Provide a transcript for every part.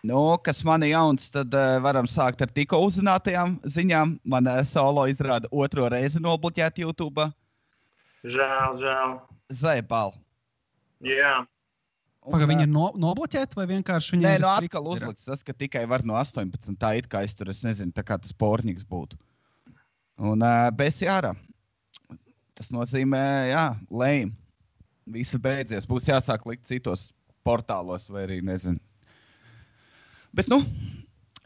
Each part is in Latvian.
Nu, kas man ir jauns, tad varam sākt ar tikko uzzinātajām ziņām. Man solo izrāda 2. reizi nobloķēt YouTube. Žēl. Zaibal. Jā. Paga, viņi ir nobloķēti vai vienkārši viņi ir atkal uzlikts tas, ka tikai var no 18. Tā it kā es tur, es nezinu, tā kā tas porņiks būtu. Un bez jārā. Tas nozīmē, lame. Visi beidzies. Būs jāsāk likt citos portālos vai arī, nezinu. Bet,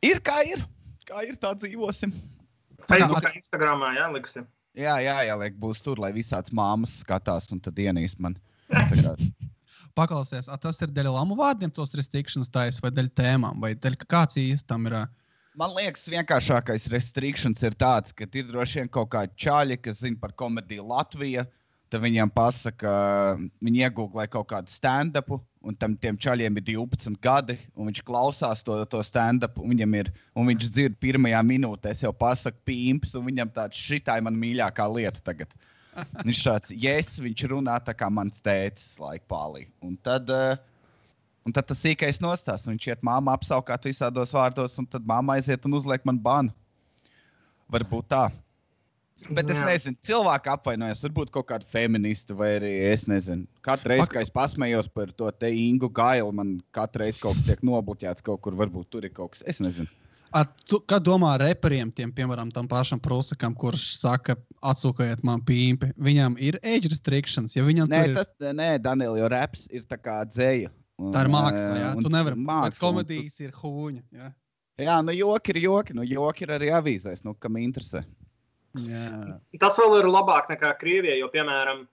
ir kā ir. Kā ir, tā dzīvosim. Facebookā, Instagramā, liksi. Jā, jāliek būs tur, lai visāds māmas skatās un tad ienīst man. Paklausies, tas ir dēļ lamu vārdiem tos restrictions taisa vai dēļ tēmām, vai dēļ kāds īsti tam ir? Man liekas, vienkāršākais restrictions ir tāds, ka ir droši vien kaut kādi čaļi, kas zina par komediju Latvija, tad viņiem pasaka, viņi iegūglē kaut kādu stand-upu, un tiem čaļiem ir 12 gadi, un viņš klausās to stand-upu, un viņš dzird pirmajā minūtē, es jau pasaku pīmps, un viņam tāds šitā ir man mīļākā lieta tagad. Viņš šāds, viņš runā tā kā mans tētis laikpālī. Un tad tas sīkais nostās, viņš iet māmu apsaukāt visādos vārdos, un tad māma aiziet un uzliek man banu. Varbūt tā. Bet es nezinu, cilvēki apvainojas, varbūt kaut kādu feministu vai arī, es nezinu. Katru reizi, kā es pasmējos par to te Ingu Gailu, man katru reizi kaut kas tiek nobloķēts kaut kur, varbūt tur ir kaut kas, es nezinu. Kā domā reperiem, piemēram, tam pašam Prusakam, kurš saka, atsūkojiet man pīmpi, viņam ir age restrictions? Ja viņam Nē, Daniel, jo raps ir tā kā dzēja. Tā ir māksla, jā? Tu nevari, bet komedijas ir hūņa, jā? Jā, joki ir joki, joki ir arī avīzēs, kam interesē. Jā. Tas vēl ir labāk nekā Krievijā, jo, piemēram,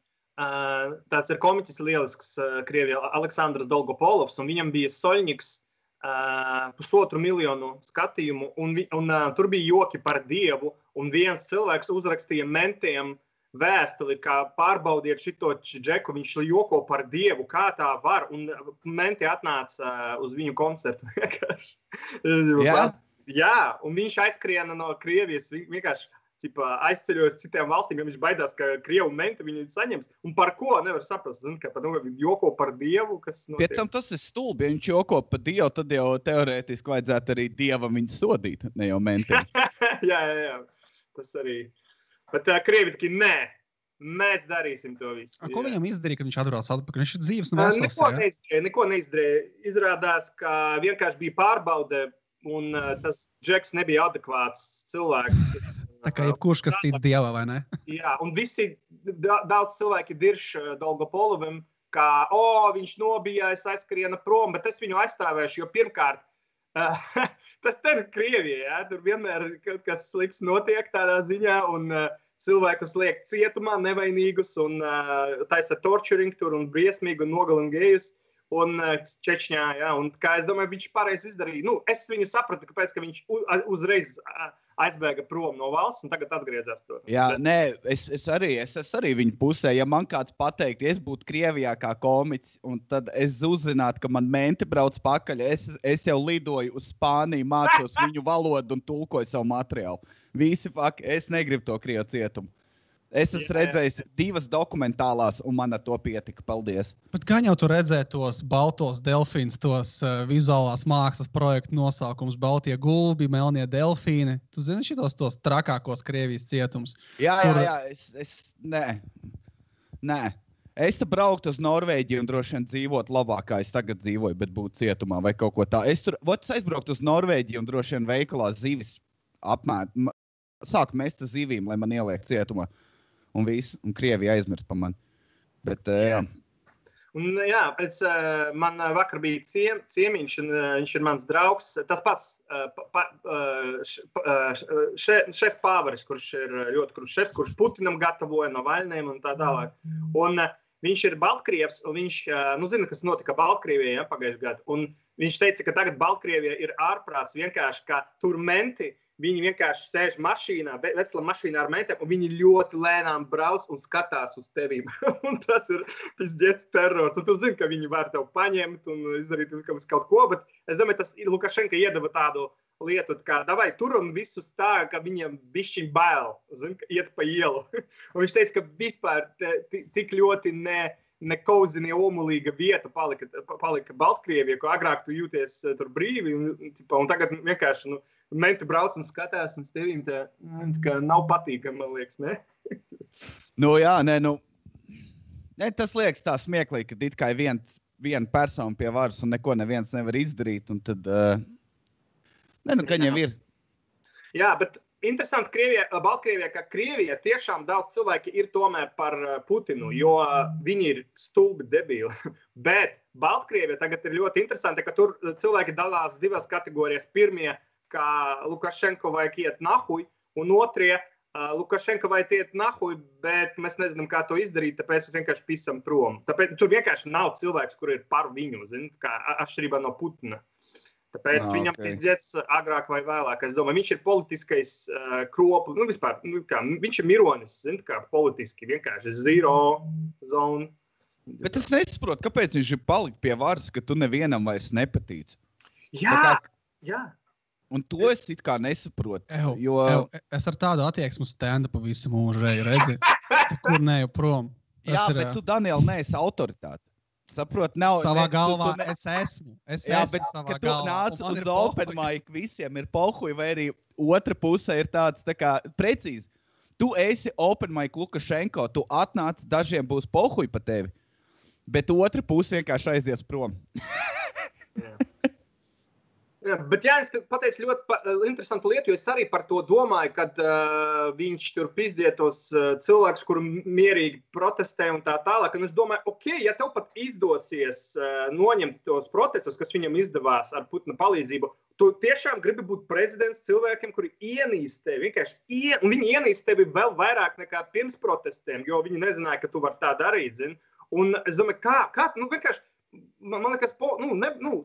tāds ir komiķis lielisks Krievijā, Aleksandrs Dolgopolovs, un viņam bija Soļņiks 1,5 miljonu skatījumu, un tur bija joki par Dievu, un viens cilvēks uzrakstīja mentiem vēstuli, kā pārbaudiet šito džeku, viņš joko par Dievu, kā tā var, un menti atnāca uz viņu koncertu. Jā, un viņš aizskriena no Krievijas, vienkārši aizceļojas citām valstīm, ja viņš baidās, ka Krievu menti viņu saņems. Un par ko nevar saprast? Zin, ka joko par Dievu, kas notiek. Pēc tam tas ir stulbi. Ja viņš joko par Dievu, tad jau teorētiski vajadzētu arī Dievam viņu sodīt, ne jau mentiem. jā. Tas arī. Bet Krievi taki, nē, mēs darīsim to visu. Ko viņam izdarīja, ka viņš atbrauc atpakaļ? Viņš ir dzīves un vesels, Neko neizdarīja. Izrādās, ka vienkārši bija pārbaude, un tas džeks nebija adekvāts cilvēks. Tā kā jebkurš, kas tic Dievā, vai ne? Jā, un daudz cilvēki dirš Dolgopolovam, ka, viņš nobijās, aizskriena prom, bet es viņu aizstāvēšu, jo pirmkārt, tas ir Krievija, jā, tur vienmēr kaut kas slikts notiek tādā ziņā, un cilvēkus liek cietumā nevainīgus, un taisa torturing tur, un briesmīgi, un nogalina gejus, un Čečņā, jā, un kā es domāju, viņš pareizi izdarīja. Es viņu sapratu, kāpēc, ka viņš uzreiz aizbēga prom no valsts un tagad atgriezās, protams. Jā, nē, es arī viņu pusē. Ja man kāds pateikt, es būtu Krievijā kā komiķis, un tad es uzzinātu, ka man menti brauc pakaļ, es jau lidoju uz Spāniju, mācos viņu valodu un tulkoju savu materiālu. Visi faki, es negribu to Krievu cietumu. Es esmu redzējis 2 dokumentālās, un man ar to pietika. Paldies. Bet gan jau tu redzēji tos baltos delfīnus, tos vizuālās mākslas projektu nosaukums, baltie gulbi, melnie delfīni. Tu zini šitos tos trakākos Krievijas cietums? Jā, nē. Es brauktu uz Norvēģiju un droši vien dzīvot labāk, kā es tagad dzīvoju, bet būtu cietumā vai kaut ko tā. Es aizbrauktu uz Norvēģiju un droši vien veikalā zivis sāku mest zivīm, lai man ieliek cietumā. Un viss, un Krievija aizmirst par mani. Bet, jā. Un jā, man vakar bija ciemiņš, un viņš ir mans draugs. Tas pats šefpāvaris, kurš ir ļoti krūts šefs, kurš Putinam gatavoja no vaļniem un tā tālāk. Un viņš ir Baltkrievs, un viņš, zina, kas notika Baltkrievijā pagājušajā gadā. Un viņš teica, ka tagad Baltkrievijā ir ārprāts vienkārši, ka tur menti, viņi vienkārši sēž mašīnā, veselā mašīnā ar mentiem, un viņi ļoti lēnām brauc un skatās uz tevīm. Un tas ir pizdziets terrors. Un tu zini, ka viņi var tev paņemt un izdarīt kaut ko, bet es domāju, tas Lukašenka iedeva tādu lietu, kā davai tur un visus tā, ka viņam bišķiņ bail, zini, iet pa ielu. Un viņš teica, ka vispār tik ļoti nekauzinie omulīga vieta palika Baltkrievija, ko agrāk tu jūties tur brīvi, un tagad vienkārši, menti brauc un skatās, un tevīm tā nav patīkami, man liekas, ne? Tas liekas tā smieklīgi, ka it kā viena persona pie varas un neko neviens nevar izdarīt, un tad, kaņem ir. Jā, bet interesanti Baltkrievijā, ka Krievijā tiešām daudz cilvēki ir tomēr par Putinu, jo viņi ir stulbi debili. Bet Baltkrievijā tagad ir ļoti interesanti, ka tur cilvēki dalās divas kategorijas. Pirmie, ka Lukašenko vajag iet nahuj, un otrie, Lukašenko vajag iet nahuj, bet mēs nezinām, kā to izdarīt, tāpēc vienkārši pisam prom. Tāpēc tur vienkārši nav cilvēks, kur ir par viņu, kā atšķirībā no Putina. Tāpēc viņam pizdzēts agrāk vai vēlāk. Es domāju, viņš ir politiskais kropu, vispār, viņš ir mironis, kā politiski, vienkārši zero zone. Bet es nesaprotu, kāpēc viņš ir palikt pie varas, ka tu nevienam vairs nepatīc. Jā. Un to es it kā nesaprotu. Es ar tādu attieksmu stand-upu visu mūžu redzi. Kur neju prom. Bet tu, Daniel, neesi autoritāte. Saprot, nav... Savā galvā es esmu. Bet, kad tu nāc uz open mic, visiem ir pohuj, vai arī otra pusē ir tāds, precīzi. Tu esi open mic Lukašenko, tu atnāc, dažiem būs pohuj pa tevi, bet otra puse vienkārši aizies prom. Jā, bet Jānis pateica ļoti interesantu lietu, jo es arī par to domāju, kad viņš tur pizdietos cilvēkus, kuri mierīgi protestē un tā tālāk. Un es domāju, ja tev pat izdosies noņemt tos protestus, kas viņam izdevās ar Putina palīdzību, tu tiešām gribi būt prezidents cilvēkiem, kuri ienīst tevi, un viņi ienīst tevi vēl vairāk nekā pirms protestiem, jo viņi nezināja, ka tu vari tā darīt, zini. Un es domāju, kā vienkārši, man liekas,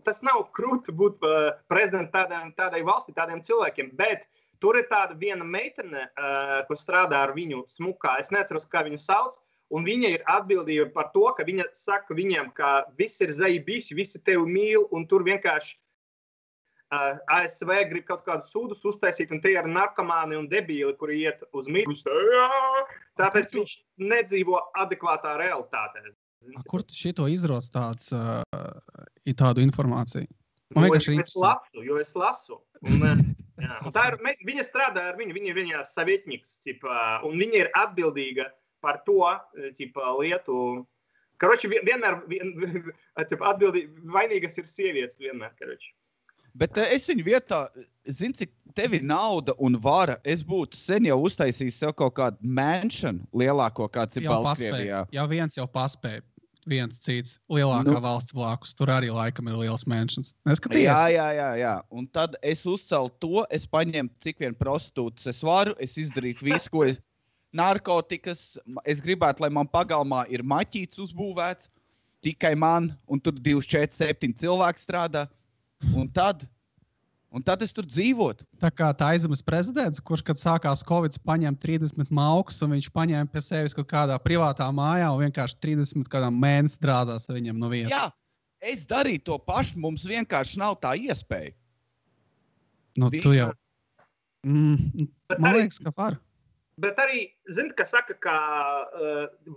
tas nav krūti būt prezidentu tādai valstī, tādiem cilvēkiem, bet tur ir tāda viena meitene, ko strādā ar viņu smukā. Es neatceros, kā viņu sauc, un viņa ir atbildība par to, ka viņa saka viņiem, ka viss ir zaibisi, visi tevi mīl, un tur vienkārši ASV grib kaut kādus sūdus uztaisīt, un tie ir narkomāni un debīli, kuri iet uz mīlustu. Tāpēc viņš nedzīvo adekvātā realitātē. Kur tu šito izroc tādu informāciju? Jo es lasu. Un tā ir, viņa strādā ar viņu, viņa ir viņa savietnieks, un viņa ir atbildīga par to lietu. Karoči, vienmēr vainīgas ir sievietes vienmēr, karoči. Bet es viņu vietā, zinu, cik tev ir nauda un vara, es būtu sen jau uztaisījis sev kaut kādu mansion lielāko, kāds ir Baltkrievijā. Jā, viens jau paspēja. Viens cits lielākā valsts blakus. Tur arī laikam ir liels mansions. Jā. Un tad es uzcelu to, es paņemu cik vien prostitūtas es varu, es izdarītu visu, ko narkotikas, es gribētu, lai man pagalmā ir maķīts uzbūvēts, tikai man, un tur 2, 4, 7 cilvēki strādā. Un tad es tur dzīvotu. Tā kā tā aizemes prezidents, kurš, kad sākās Covid, paņēma 30 maukus, un viņš paņēma pie sevis kaut kādā privātā mājā un vienkārši 30 kādām mēnesi drāzās ar viņiem no vietas. Jā, es darīju to pašu, mums vienkārši nav tā iespēja. Tu jau. Man liekas, ka var. Bet arī, ka saka, ka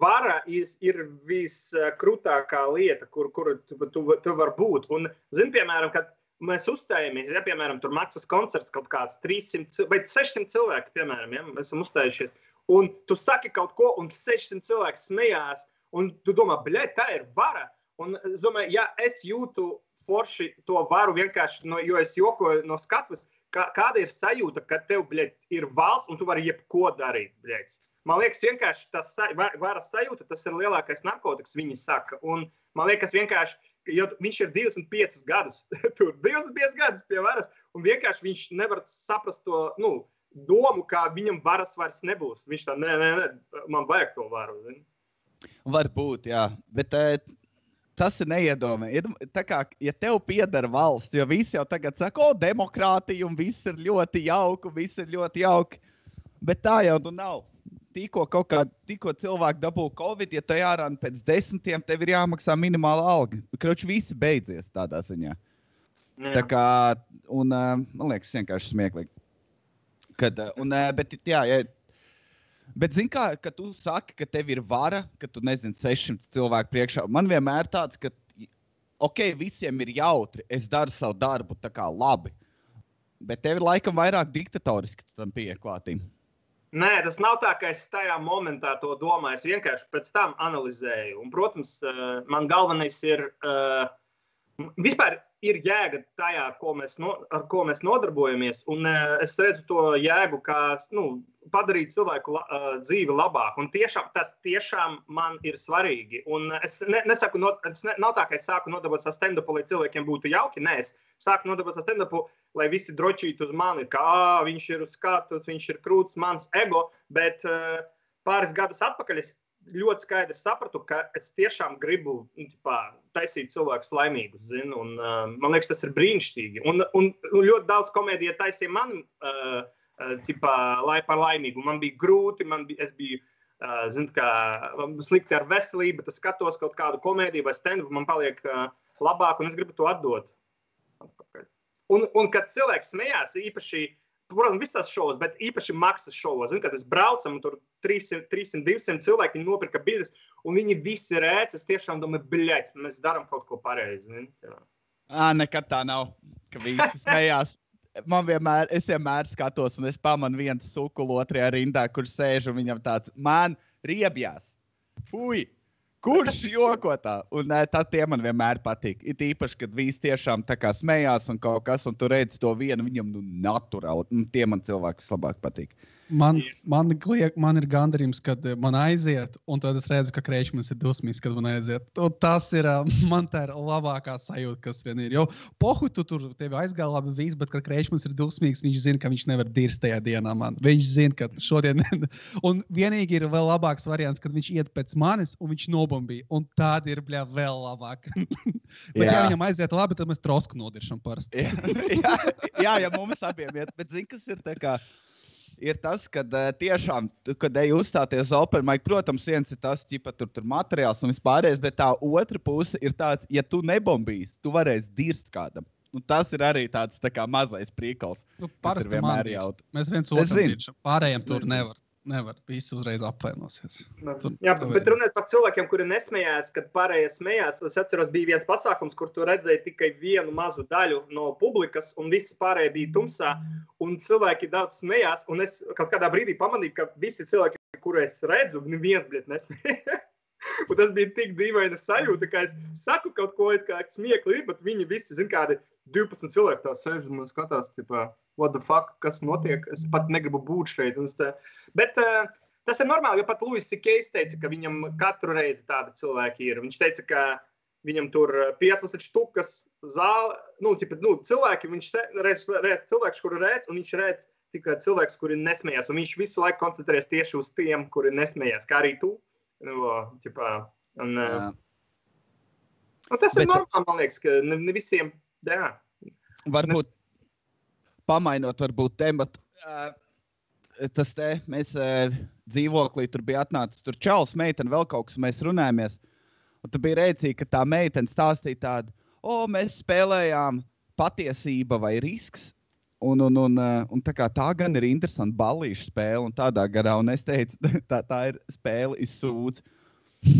vara ir viskrūtākā lieta, kur tu var būt. Un, piemēram, kad mēs uzstājamies, piemēram, tur maksas koncerts kaut kāds 300 vai 600 cilvēki, piemēram, mēs esam uzstājušies, un tu saki kaut ko, un 600 cilvēki smējās, un tu domā, tā ir vara. Un es domāju, ja es jūtu forši to varu vienkārši, jo es jokoju no skatuves, kāda ir sajūta, ka tev, ir valsts, un tu vari jebko darīt, Man liekas, vienkārši tas varas sajūta, tas ir lielākais narkotikas, viņi saka. Un man liekas, vienkārši, jo viņš ir 25 gadus, tur 25 gadus pie varas, un vienkārši viņš nevar saprast to, domu, ka viņam varas vairs nebūs. Viņš tā, man vajag to varu. Zini? Varbūt, jā, bet tas ir neiedomājami. Tā kā, ja tev pieder valsts, jo visi jau tagad saka, demokrātija, un viss ir ļoti jauki, bet tā jau tu nav. Tikko cilvēki dabū Covid, ja tu jārāna pēc 10, tev ir jāmaksā minimāla alga. Kroči, visi beidzies tādā ziņā. Jā. Tā kā, un man liekas, vienkārši smieklīgi. Bet jā, Bet zini kā, ka tu saki, ka tev ir vara, ka tu nezini 600 cilvēku priekšā. Man vienmēr tāds, ka visiem ir jautri, es daru savu darbu tā kā labi. Bet tev ir laikam vairāk diktatoriski tam pieklātīm. Nē, tas nav tā, ka es tajā momentā to domāju. Es vienkārši pēc tam analizēju. Un, protams, man galvenais ir... Vispār ir jēga tajā, ar ko mēs nodarbojamies, un es redzu to jēgu, kā padarīt cilvēku dzīvi labāku. Un tas tiešām man ir svarīgi. Un es nesaku, nav tā, ka es sāku nodarboties ar stand-upu, lai cilvēkiem būtu jauki. Nē, es sāku nodarboties ar stand-upu, lai visi drošītu uz mani, ka viņš ir uz skatus, viņš ir krūts, mans ego, bet pāris gadus atpakaļ es ļoti skaidri sapratu, ka es tiešām gribu taisīt cilvēkus laimīgus, zinu, un man liekas, tas ir brīnišķīgi. Un ļoti daudz komēdija taisīja mani par laimīgu. Man bija grūti, es biju, slikti ar veselību, bet es skatos kaut kādu komēdiju vai stand-up, man paliek labāk, un es gribu to atdot. Un kad cilvēks smējās, īpaši, protams, visās šovos, bet īpaši maksas šovos. Kad es braucam, un tur 300-200 cilvēki, viņi nopirka biļetes, un viņi visi rēc, es tiešām domāju, bļaļ, mēs darām kaut ko pareizi. Nekad tā nav, ka visi smējās. Es vienmēr skatos, un es pamanu vienu sukulu otrajā rindā, kur sēž, un viņam tāds, man riebjās. Fui! Kurš joko tā? Un tie man vienmēr patīk. It īpaši, kad visi tiešām tā kā smējās un kaut kas, un tu redzi to vienu, viņam naturāli. Tie man cilvēki vislabāk patīk. Man ir gandarījums, kad man aiziet, un tad es redzu, ka Kreičmanis ir dusmīgs, kad man aiziet. Un tas ir, man tā ir labākā sajūta, kas vien ir. Jo pohu tu tur tevi aizgāja labi viss, bet kad Kreičmanis ir dusmīgs, viņš zina, ka viņš nevar dirst tajā dienā man. Viņš zina, ka šodien... Un vienīgi ir vēl labāks variants, kad viņš iet pēc manis, un viņš nobombīja. Un tādi ir, vēl labāk. Bet ja viņam aiziet labi, tad mēs trosku nodiršam parasti. Jā, mums abiem iet. Bet zini, kas ir tā kā... Ir tas, kad tiešām, kad ej uzstāties open mic, protams, viens ir tas, tur materiāls un vispārējais, bet tā otra puse ir tāds, ja tu nebombīsi, tu varēsi dirst kādam. Un tas ir arī tāds tā kā mazais prīkals. Parasti man dirst. Mēs viens otram diršam. Pārējiem tur nevar. Visi uzreiz apvainosies. Jā, bet runāt par cilvēkiem, kuri nesmējās, kad pārējie smējās. Es atceros, bija viens pasākums, kur tu redzēji tikai vienu mazu daļu no publikas, un visi pārējie bija tumsā, un cilvēki daudz smējās, un es kaut kādā brīdī pamanīju, ka visi cilvēki, kuru es redzu, neviens, nesmējās. Un tas bija tik dīvaina sajūta, ka es saku kaut ko, kā smiekli, bet viņi visi, kādi 12 cilvēki tā sēž un man skatās, what the fuck, kas notiek, es pat negribu būt šeit. Bet tas ir normāli, jo pat Louis C.K. teica, ka viņam katru reizi tādi cilvēki ir. Viņš teica, ka viņam tur 15 štukas zāle, cilvēki, viņš redz cilvēks, kuri redz, un viņš redz tikai cilvēks, kuri nesmējās, un viņš visu laiku koncentrēs tieši uz tiem, kuri nesmējās, kā arī tu. Un tas ir normāli, man liekas, ka ne visiem, jā. Varbūt pamainot tematu, tas mēs dzīvoklī tur bija atnācis, tur čalis, meitene, vēl kaut kas, mēs runājamies, un tur bija rēcīgi, ka tā meitene stāstīja tādu, mēs spēlējām patiesība vai risks, un tā gan ir interesanta ballīša spēle, un tādā garā, un es teicu, tā ir spēle izsūdz,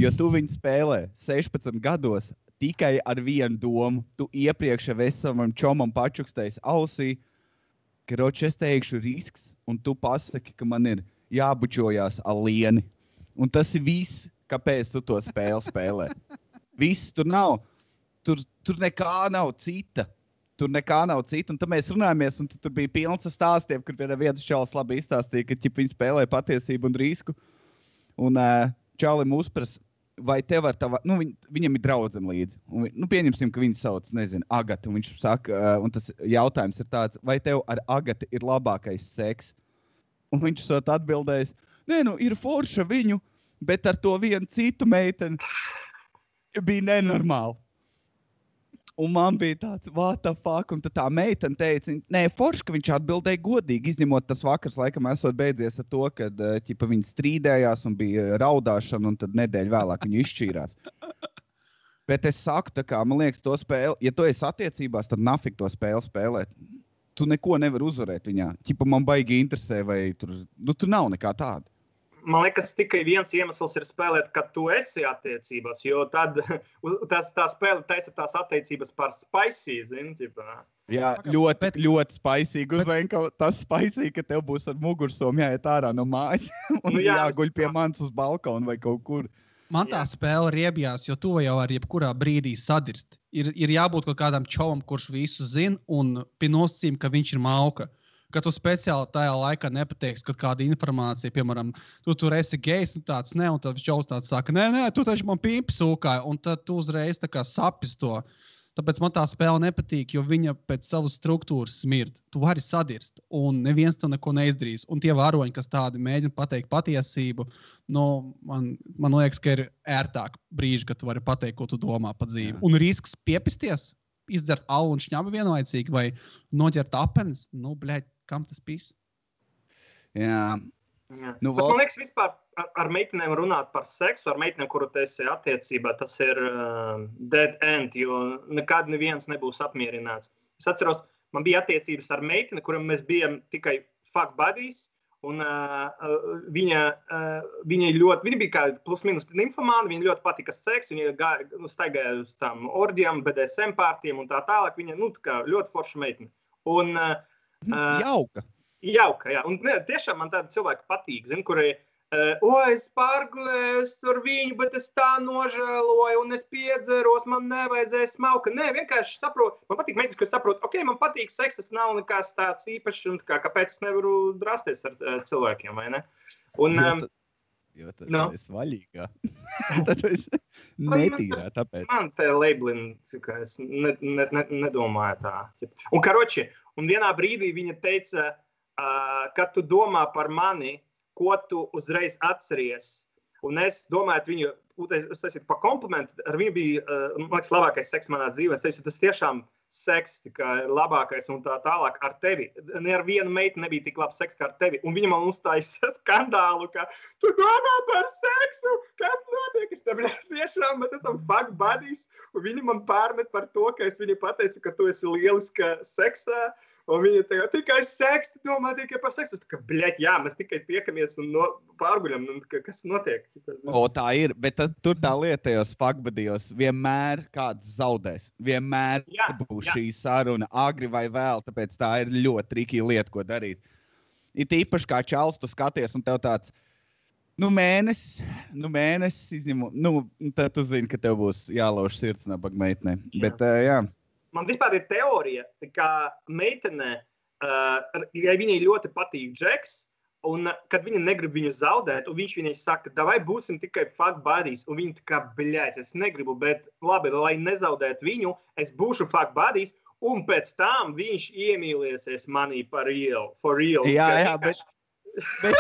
jo tu viņu spēlē 16 gados tikai ar vienu domu, tu iepriekš jau esi savam čomam pačukstējis ausī, ka es teikšu risks, un tu pasaki, ka man ir jābučojās ar lieni. Un tas ir viss, kāpēc tu to spēli spēlē. Viss tur nav, tur nekā nav cita. Un tad mēs runājamies, un tur bija pilns ar stāstiem, kur viens čalis labi izstāstīja, ka viņi spēlē patiesību un risku. Un čalim uzprasa, vai tev ar tava, viņam ir draudzene līdzi. Un, pieņemsim, ka viņu sauc, Agata. Un viņš saka, un tas jautājums ir tāds, vai tev ar Agatu ir labākais seks? Un viņš sot atbildējis, ir forša viņu, bet ar to vienu citu meiteni bija nenormāli. Un man bija tāds, what the fuck, un tad tā meitene teica, forši, ka viņš atbildēja godīgi, izņemot tas vakars, laikam, esot beidzies ar to, kad viņi strīdējās un bija raudāšana, un tad nedēļu vēlāk viņi izšķīrās. Bet es saku, man liekas, to spēli, ja tu esi attiecībās, tad nafik to spēli spēlēt. Tu neko nevar uzvarēt viņā. Man baigi interesē, vai tur nav nekā tāda. man liekas, tikai viens iemesls ir spēlēt, kad tu esi attiecībās, jo tad tā spēle taisa tās attiecības par spicy, zini, ķipā. Jā, ļoti spaisīgi. Uzvenka tas spaisīgi, ka tev būs ar mugursomu jāiet ārā no mājas un jāguļ pie manis uz balkonu vai kaut kur. Man tā spēle riebjās, jo to jau ar jebkurā brīdī sadirst. Ir jābūt kaut kādam čovam, kurš visu zina un pie nosacījuma, ka viņš ir mauka. Ka tu speciāli tajā laikā nepateiksi, kad kāda informācija, piemēram, tu tur esi gejs, nu tāds ne, un tad čovs tāds saka, nē, tu taču man pīpi sūkāji, un tad tu uzreiz tā kā sapis to. Tāpēc man tā spēle nepatīk, jo viņa pēc savas struktūras smird. Tu vari sadirst, un neviens to neko neizdarīs. Un tie varoņi, kas tādi mēģina pateikt patiesību, nu, man liekas, ka ir ērtāk brīži, kad tu vari pateikt, ko tu domā pa dzīvi. Jā. Un risks piepisties, izdzert alu un šņabu vienlaicīgi, vai noķert apenes, nu, bļaļ, kam tas pis? Jā. Nu, man liekas, vispār ar meitenēm runāt par seksu, ar meitenēm, kuru tu esi attiecībā, tas ir dead end, jo nekad neviens nebūs apmierināts. Es atceros, man bija attiecības ar meiteni, kuram mēs bijām tikai fuck buddies, un viņa bija kā plus minus nymphomāna, viņa ļoti patika seks, viņa staigāja uz tām orģijām, BDSM pārtiem un tā tālāk, viņa, nu, tā kā ļoti forša meitene. Un Jauka, jā. Un tiešām man tādi cilvēki patīk, zin, kuri, es pārgulēju ar viņu, bet es tā nožēloju, un es piedzeros, man nevajadzēja smauka. Nē, vienkārši saprotu, man patīk meitenes, kas saprot, ok, man patīk seks, tas nav nekas tāds īpašs, un kāpēc es nevaru drāsties ar cilvēkiem, vai ne? Un, jo tad es vaļīgā. Tad es netīrā, tāpēc. Man te labelin, ka es nedomāju tā. Un karoči, un vienā brīdī viņa teica, kad tu domā par mani, ko tu uzreiz atceries. Un es domāju, viņu, es teicu, pa komplimentu, ar viņu bija, man liekas, labākais seks manā dzīvē. Es teicu, tas tiešām seks, labākais un tā tālāk ar tevi. Ne ar vienu meitu nebija tik labs seks kā ar tevi. Un viņa man uzstājas skandālu, ka tu domā par seksu, kas notiek? Es tev tiešām, mēs esam fuck buddies. Un viņa man pārmet par to, ka es viņai pateicu, ka tu esi lieliska seksā. Un viņa teica, tikai seks, tu domā tikai par seksu. Es tā kā, bļaļ, jā, mēs tikai tiekamies un pārguļam, kas notiek. O, tā ir, bet tad tur tā lieta tajos fuckbudijos vienmēr kāds zaudēs. Vienmēr būs šī saruna agri vai vēl, tāpēc tā ir ļoti trikī lieta, ko darīt. Ir īpaši kā čals, tu skaties un tev tāds, mēnesis izņemu, tad tu zini, ka tev būs jālauž sirds nabaga meitnē. Bet, jā. Man vispār ir teorija, ka meitene, ja viņai ļoti patīk Džeks, un kad viņa negrib viņu zaudēt, un viņš viņai saka, davai būsim tikai fuck buddies, un viņa tā kā, bļaļ, es negribu, bet labi, lai nezaudētu viņu, es būšu fuck buddies, un pēc tam viņš iemīliesies manī for real. Jā, bet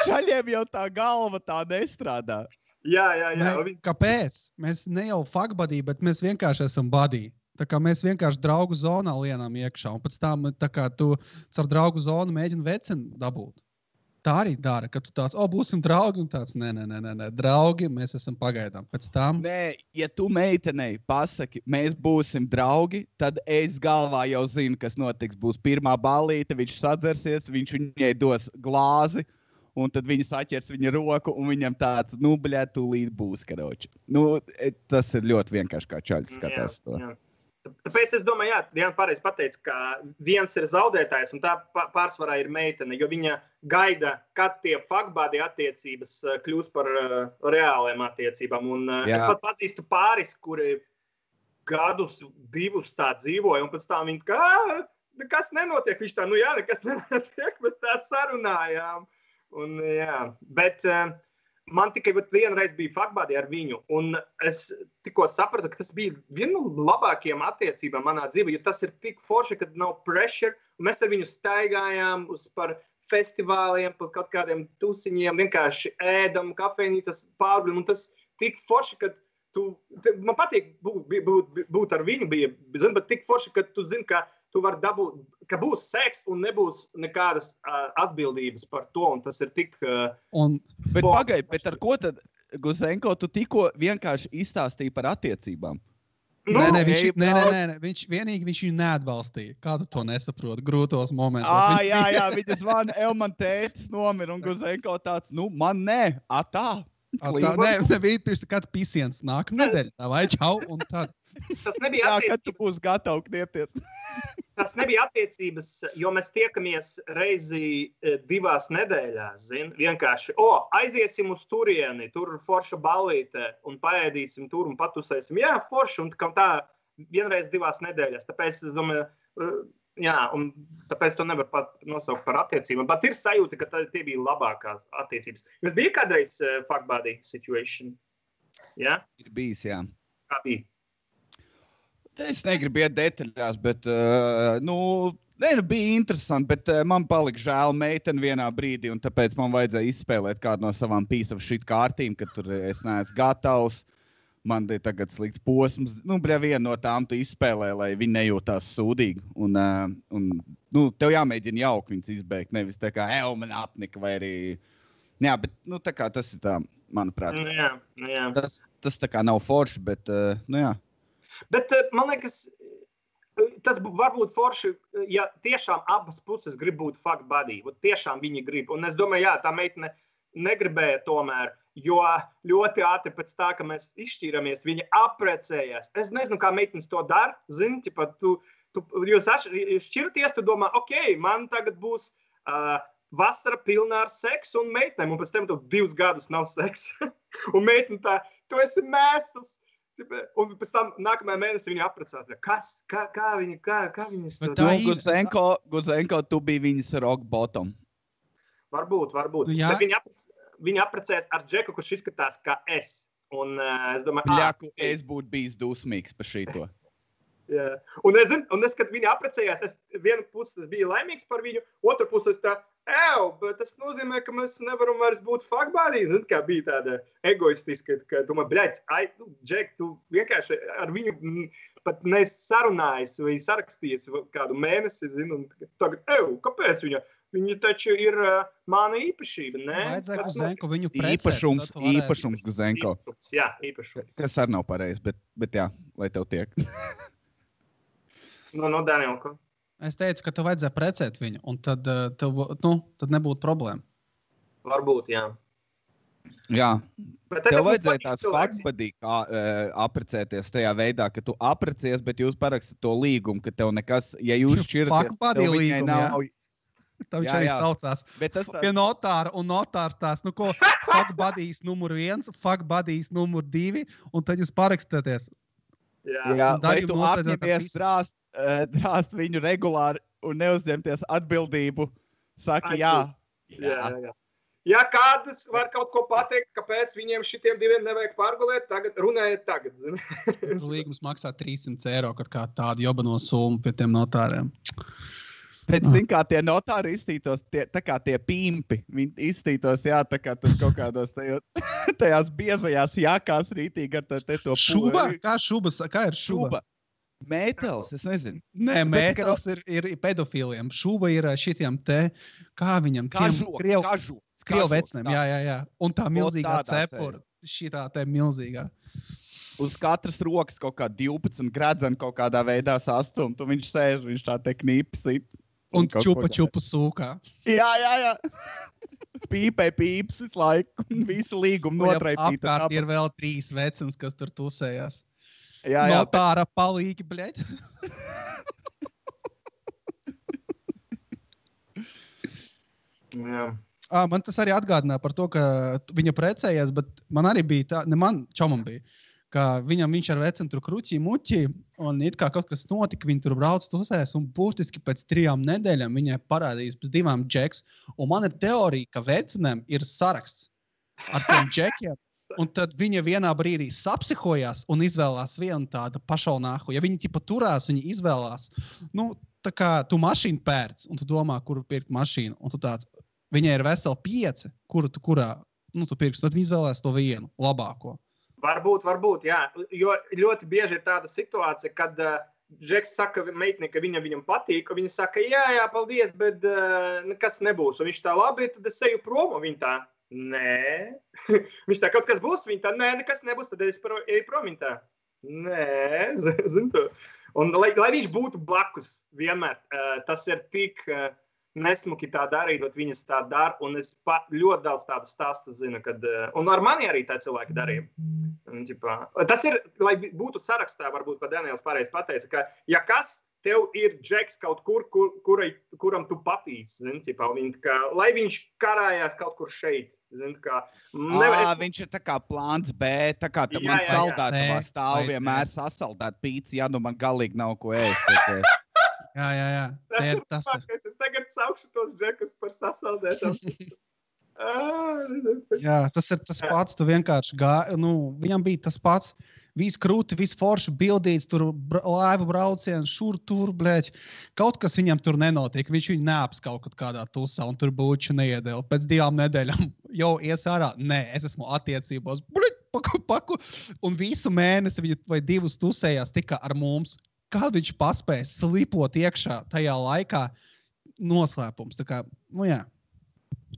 šaļiem jau tā galva tā nestrādā. Jā. Kāpēc? Mēs ne jau fuck buddy, bet mēs vienkārši esam buddy. Tā kā mēs vienkārši draugu zonā lienām iekšā, un pēc tam tā kā tu ar draugu zonu mēģini veceni dabūt. Tā arī dara, ka tu tāds, būsim draugi, un tāds, nē, draugi, mēs esam pagaidām. Pēc tam... Nē, ja tu meitenei pasaki, mēs būsim draugi, tad es galvā jau zinu, kas notiks. Būs pirmā ballīte, viņš sadzersies, viņš viņai dos glāzi, un tad viņa saķers viņa roku, un viņam tāds, bļā, tūlīt būs, karoči. Tas ir ļoti vienkārši, kā čaļs skatās to. Jā. Tāpēc es domāju, Diana pareizi pateica, ka viens ir zaudētājs un tā pārsvarā ir meitene, jo viņa gaida, kad tie fuckbuddy attiecības kļūs par reāliem attiecībām. Un es pat pazīstu pāris, kuri gadus, 2 tā dzīvoja, un pēc tam viņi kā, nekas nenotiek. Viņš tā, nekas nenotiek, mēs tā sarunājām. Un, bet... Man tikai vienreiz bija fuckbuddy ar viņu, un es tikko sapratu, ka tas bija viena no labākajām attiecībām manā dzīvē, jo tas ir tik forši, kad nav pressure, un mēs ar viņu staigājām par festivāliem, par kaut kādiem tusiņiem, vienkārši ēdam, kafejnīcas pārguļam, un tas tik forši, ka man patīk būt ar viņu, bet tik forši, ka tu zini, ka tu vari dabūt, ka būs seks un nebūs nekādas atbildības par to, un tas ir tik... Bet pagaid, bet ar ko tad, Guzenko, tu tikko vienkārši izstāstīji par attiecībām? Nē, viņš viņu neatbalstīja. Kā tu to nesaproti? Grūtos momentos. Jā, viņa zvana, man tētis nomira, un Guzenko tāds, man nē, tā. Nebija pirms kāds pisiens nākamā nedēļa. Tā vai čau, un tad. Tas nebija attiecības. Kad tu būsi gatavs kniepties. Tas nebija attiecības, jo mēs tiekamies reizi 2 nedēļās, vienkārši, aiziesim uz turieni, tur forša ballīte, un paēdīsim tur un patusēsim. Jā, forša, un tā vienreiz 2 nedēļās. Tāpēc es domāju, un tāpēc to nevar pat nosaukt par attiecībām. Bet ir sajūta, ka tie bija labākās attiecības. Jums bija kādreiz fuck buddy situation? Jā? Ir bijis, jā. Kā bija? Es negribu iet detaļās, bet, bija interesanti, bet man palika žēl meiteni vienā brīdī, un tāpēc man vajadzēja izspēlēt kādu no savām piece of shit kārtīm, ka tur es neesmu gatavs. Man ir tagad slikts posms. Viena no tām tu izspēlē, lai viņi nejūtās sūdīgi. Un tev jāmēģina jauki viņus izbeigt, nevis tā kā, man apnika vai arī... Jā, bet, tā kā tas ir tā, manuprāt. Jā. Tas tā kā nav forši, bet, jā. Bet, man liekas, tas var būt forši, ja tiešām abas puses grib būt fuck buddy. Tiešām viņi grib. Un es domāju, jā, tā meitene negribēja tomēr, jo ļoti ātri pēc tā, ka mēs izšķīramies, viņa apprecējās. Es nezinu, kā meitenes to dara. Zini, jūs šķiraties, tu domā, man tagad būs vasara pilnā ar seksu un meitenēm, un pēc tam tev 2 gadus nav seksa. Un meitene tā, tu esi mēsls. Un pēc tam nākamajā mēnesī viņa apprecās. Kā viņas to... Guzenko, tu biji viņas rock bottom. Varbūt. Bet viņa apprecējās ar Džeku, kurš izskatās kā es. Un es domāju... Es būtu bijis dusmīgs par šito. Jā. Un es, kad viņa apprecējās, vienu pusi es biju laimīgs par viņu, otru pusi es tā, bet tas nozīmē, ka mēs nevaram vairs būt fuck buddy. Zin, kā bija tāda egoistiska, ka tu man, Džek, tu vienkārši ar viņu pat neesi sarunājis vai sarakstījies kādu mēnesi, zin, un tagad, kāpēc viņa? Viņa taču ir mana īpašība, ne? Vajadzēja Guzenko viņu precēt. Īpašums Guzenko. Jā, īpašums. Kas arī nav pareizi, bet jā, lai tev tiek. No Danielko. Es teicu, ka tev vajadzēja precēt viņu, un tad nebūtu problēma. Varbūt, jā. Jā. Tev vajadzēja tās faktspadīgi apprecēties tajā veidā, ka tu apprecies, bet jūs parakstat to līgumu, ka tev nekas, ja jūs šķiraties, tev viņai nav... Tā viņš arī saucās. Pie notāra, un notārs tās, fuck buddies numur 1, fuck buddies numur 2, un tad jūs parakstāties. Jā, vai tu apņemies drāst viņu regulāri un neuzņemties atbildību, saki jā. Ja kādas var kaut ko pateikt, kāpēc viņiem šitiem 2 nevajag pārgulēt, runājiet tagad. Līgums maksā 300 eiro, kad kā tādu jobano summu pie tiem notāriem. Bet, kā tie notāri izstītos, tā kā tie pimpi, viņi izstītos, tā kā tur kaut kādos tajās biezajās jākās rītīgi ar to šuba? Kā šubas? Kā ir šuba? Mētels, es nezinu. Nē, mētels ir pedofīliem. Šuba ir šitiem kā viņam? Krievu vecnēm, jā. Un tā milzīgā cepura, šitā milzīgā. Uz katras rokas kaut kā 12 gredzeni kaut kādā veidā sastumt, un viņš sēž, viņš tā te knīpsit. Un čupa sūkā. Jā. Pīpē pīps visu laiku. Visu līgumu notraipīt. Apkārt ir vēl 3 vecens, kas tur tusējās. Jā. Notāra palīgi, bļeļ. Jā. Man tas arī atgādināja par to, ka viņa precējās, bet man arī bija tā, ne man, čomam bija, ka viņš ar vecenu tur kruķī muķī, un it kā kaut kas notika, viņi tur brauc tusēs, un būtiski pēc 3 nedēļām viņai parādījās pēc 2 džeks, un man ir teorija, ka vecenēm ir saraksts ar tiem džekiem, un tad viņa vienā brīdī sapsihojās un izvēlās vienu tādu pašalnāku. Ja viņi tipa turās, viņi izvēlās, tā kā tu mašīnu pērc, un tu domā, kuru pirkt mašīnu, un tu tāds, viņai ir veseli 5, kuru tu pirks, tad viņi izvēlās to vienu, labāko. Varbūt, jā. Jo ļoti bieži ir tāda situācija, kad Džeks saka meitnei, ka viņam patīk, un viņa saka, jā, paldies, bet nekas nebūs. Un viņš tā labi, tad es eju prom, un viņa tā, nē. Viņš tā, kaut kas būs, viņa tā, nē, nekas nebūs, tad es eju prom, viņa tā. Nē, zinu to. Un lai viņš būtu blakus vienmēr, tas ir tik nesmuki tā darīt, bet viņas tā dara, un es ļoti daudz tādu stāstu zinu, kad, un ar mani arī tā cilvēki darīja. Tas ir, lai būtu sarakstā, varbūt pat Daniels pareizi pateica, ka ja kas tev ir džeks kaut kur, kuram tu papīc, lai viņš karājās kaut kur šeit. Viņš ir tā kā plāns B, tā kā man saldētavā stāv vienmēr sasaldēt pīci, ja nu man galīgi nav ko ēst. Jā. Tas ir. Es tagad saukšu tos džekus par sasaldētām. Jā, tas ir tas pats, tu vienkārši viņam bija tas pats, viss krūti, viss forši bildīts, tur laivu brauciens, šur, tur, blēķi. Kaut kas viņam tur nenotiek, viņš viņu neaps kaut kādā tusā un tur būču neiedēl. Pēc 2 nedēļām jau ies ārā, nē, es esmu attiecībos, paku, un visu mēnesi viņi vai 2 tusējās tikai ar mums. Kā viņš paspēja slipot iekšā tajā laikā noslēpums. Tā kā, jā.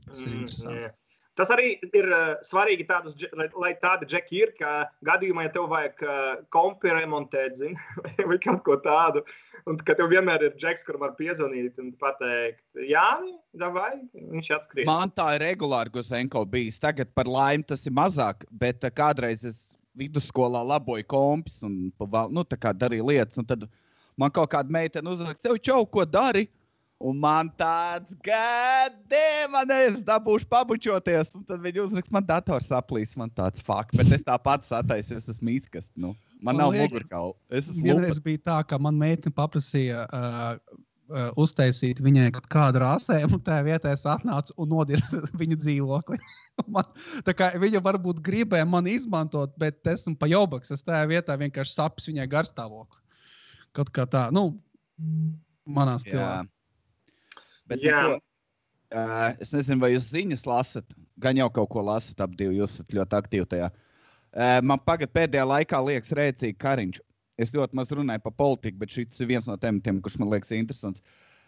Tas ir interesanti. Tas arī ir svarīgi lai tādi džeki ir, ka gadījumā, ja tev vajag kompi remontēt, vai kaut ko tādu, un ka tev vienmēr ir džeks, kuram var piezvanīt un pateikt, Jāni, davai, viņš atskries. Man tā ir regulāri Guzenko bijis. Tagad par laimi tas ir mazāk, bet kādreiz es vidusskolā laboju kompis un tā kā darīju lietas, un tad man kaut kāda meitene uzraksta, tev čau, ko dari? Un man tāds, es dabūšu pabučoties, un tad viņi uzrakst, man dators saplīs, man tāds fuck, bet es tā pats attaisu, es esmu mīskast, man nav mugurkaula. Vienreiz bija tā, ka man meitne paprasīja uztaisīt viņai kādu rāsēm, un tajā vietā es atnācu un nodirsu viņu dzīvokli. Tā kā viņa varbūt gribēja mani izmantot, bet esmu pa jobaks, es tajā vietā vienkārši sapis viņai garstāvokli. Kaut kā tā, manā stilā. Bet es nezinu, vai jūs ziņas lasat, gan jau kaut ko lasat ap divu, jūs esat ļoti aktīvi tajā. Man pēdējā laikā liekas rēcīgi Kariņš. Es ļoti maz runāju par politiku, bet šis ir viens no tematiem, kurš man liekas interesants.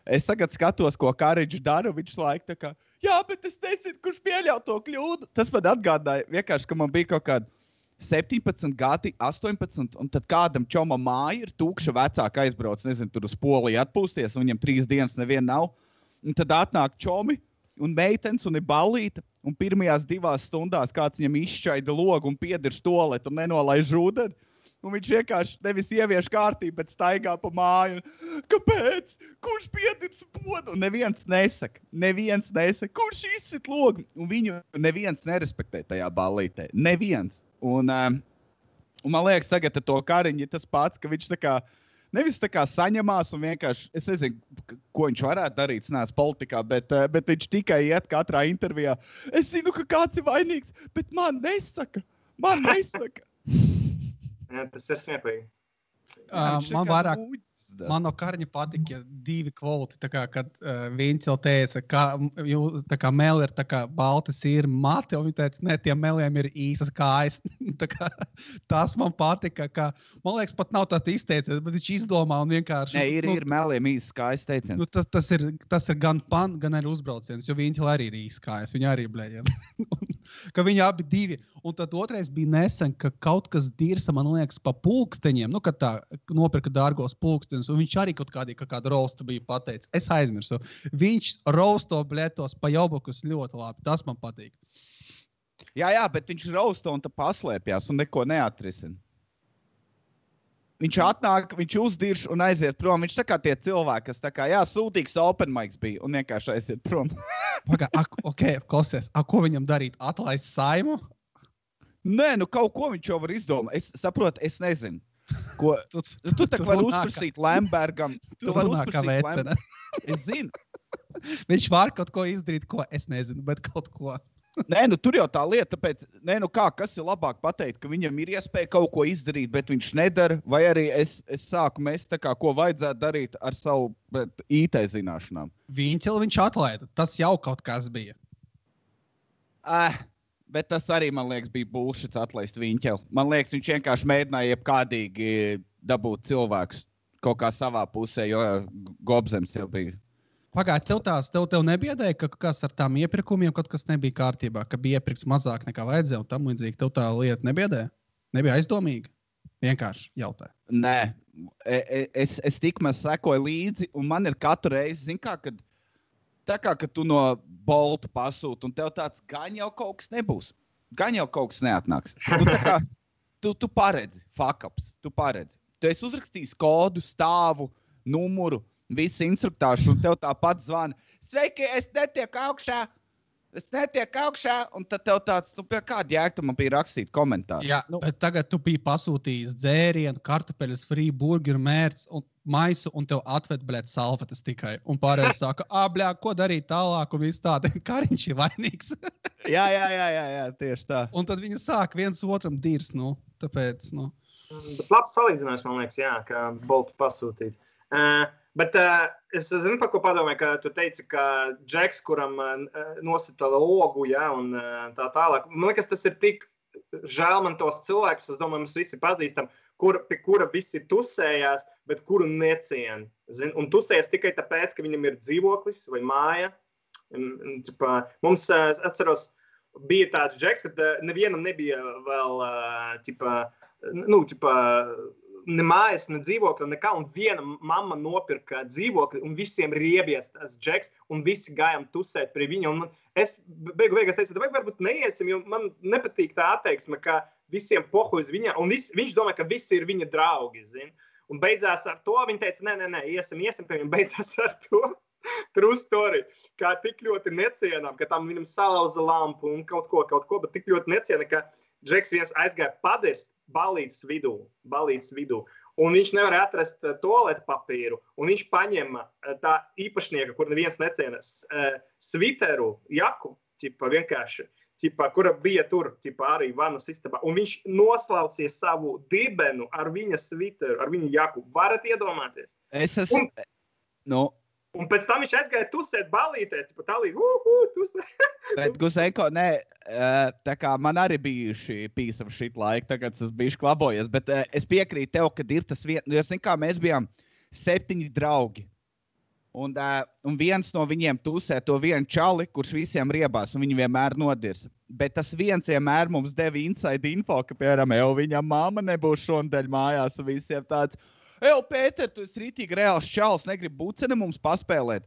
Es tagad skatos, ko Kariņš dara, viņš laika tā kā, jā, bet es nezinu, kurš pieļauj to kļūdu. Tas man atgādāja vienkārši, ka man bija kaut kāda 17 gadi, 18, un tad kādam čomam māja ir tūkša vecāka aizbrauc, nezinu, tur uz Poliju atpūsties, un viņam 3 dienas neviena nav. Un tad atnāk čomi un meitenes un ir ballīta, un pirmajās 2 stundās kāds viņam izšķaida logu un piedirš toaletu un nenolaiž ūdeni. Un viņš vienkārši nevis ievieš kārtību, bet staigā pa māju. Kāpēc? Kurš piedirš podu? Un neviens nesaka, kurš izsit logu. Un viņu neviens nerespektē tajā ballītē. Neviens. Un man liekas, tagad ar to Kariņu ir tas pats, ka viņš tā kā nevis tā kā saņemās un vienkārši, es nezinu, ko viņš varētu darīt, es neesmu politikā, bet viņš tikai iet katrā intervijā. Es zinu, ka kāds ir vainīgs, bet man nesaka. Jā, tas ir smieklīgi. Man no Kariņa patika 2 kvoti, tā kā, kad Vincel teica, tā kā meli ir tā kā balta sīra mati, un viņi teica, ne, tiem meliem ir īsas kājas. Tā kā, tas man patika, ka, man liekas, pat nav tāda izteiciens, bet viņš izdomā un vienkārši... Ne, ir meliem īsas kājas teiciens. Tas ir gan pan, gan arī uzbrauciens, jo Vincel arī ir īsas kājas, viņi arī blēģiem. Ka viņi abi 2. Un tad otrais bija nesen, ka kaut kas dirsa, man liekas, pa pulksteņiem, kad tā nopirka dārgos pulksteņus, un viņš arī kaut kādu rostu bija pateicis. Es aizmirsu. Viņš rosto bļetos pa jobokus ļoti labi. Tas man patīk. Jā, bet viņš rosto un tā paslēpjās un neko neatrisina. Viņš atnāk, viņš uzdirš un aiziet prom. Viņš tā kā tie cilvēki, kas tā kā, sūtīgs open mics bija un vienkārši aiziet prom. Klausies, ko viņam darīt? Atlaist Saimu? Nē, kaut ko viņš jau var izdomāt. Es saprotu, es nezinu. Ko, tu tā var uzprasīt Lembergam. Tu var uzprasīt Lembergam. Es zinu. Viņš var kaut ko izdarīt, ko es nezinu, bet kaut ko. Nē, tur jau tā lieta, tāpēc, kas ir labāk pateikt, ka viņam ir iespēja kaut ko izdarīt, bet viņš nedara, vai arī es sāku mest tā kā, ko vajadzētu darīt ar savu IT zināšanām. Viņš atlaida, tas jau kaut kas bija. Bet tas arī, man liekas, bija bullshit atlaist Viņķeli. Man liekas, viņš vienkārši mēģināja jebkādīgi dabūt cilvēkus kaut kā savā pusē, jo Gobzems jau bija. Pagāj, tev nebiedēja, ka kas ar tām iepirkumiem kaut kas nebija kārtībā, ka bija iepirks mazāk nekā vajadzēja un tam līdzīgi. Tev tā lieta nebiedēja? Nebija aizdomīga? Vienkārši jautāju. Nē, es tikmaz sekoju līdzi, un man ir katru reizi, zin kā, kad tā kā, kad tu no Bolta pasūti, un tev tāds gan jau kaut kas nebūs. Gan jau kaut kas neatnāks. Tu tā kā, tu paredzi, fuck-ups, tu paredzi. Tu esi uzrakstījis kodu, stāvu, numuru, visu instruktāšu, un tev tāpat zvana. Sveiki, es netieku augšā, un tad tev tāds, pie kāda jēga tu man bija rakstīt komentāru. Jā, bet tagad tu biji pasūtījis dzērienu, kartupeļus, free burgeru, mērts un maisu, un tev atved, salvetes tikai. Un pārējais saka, ko darīt tālāk, un viss tāda, Kariņš ir vainīgs. jā, tieši tā. Un tad viņi sāk viens otram dirs, tāpēc, Bet labs salīdzinājums, man liekas, jā, kā Boltu pasūtīt. Bet es zinu, par ko padomāju, ka tu teici, ka Džeks, kuram nosita logu, ja, un tā tālāk. Man liekas, tas ir tik žēl man tos cilvēkus, es domāju, mēs visi pazīstam, pie kura visi tusējās, bet kuru necien. Un tusējas tikai tāpēc, ka viņam ir dzīvoklis vai māja. Mums, atceros, bija tāds Džeks, ka nevienam nebija vēl, ne mājas, ne dzīvokļa, nekā, un viena mamma nopirka dzīvokli, un visiem riebies tas Džeks, un visi gājām tusēt pie viņa, un es beigās teicu, varbūt neiesim, jo man nepatīk tā atteiksme, ka visiem pohujas viņa, un viņš domā, ka visi ir viņa draugi, zin, un beidzās ar to, viņa teica, nē, iesim, pie viņa, beidzās ar to, true story, kā tik ļoti necienām, ka tam viņam salauza lampu un kaut ko, bet tik ļoti neciena, ka Džeks viens aizgāja padirst balītes vidū, un viņš nevarēja atrast toaletu papīru, un viņš paņēma tā īpašnieka, kur neviens neciena, sviteru, jaku, vienkārši, kura bija tur, arī vanas istabā, un viņš noslaucīja savu dibenu ar viņa sviteru, ar viņa jaku. Varat iedomāties? Es esmu... Un pēc tam viņš aizgāja tusēt balītēs, tusēt. Bet, Guzenko, tā kā man arī bijuši piece of shit laika, tagad es bijuši klabojies, bet es piekrītu tev, kad ir tas jo, zin kā, mēs bijām 7 draugi, un viens no viņiem tusē to vienu čali, kurš visiem riebās, un viņi vienmēr nodirsa. Bet tas viens vienmēr mums deva inside info, ka, piemēram, viņam mamma nebūs šonadēļ mājās, un visiem tāds... Pēter, tu esi rītīgi reāls čals, negribi buceni mums paspēlēt.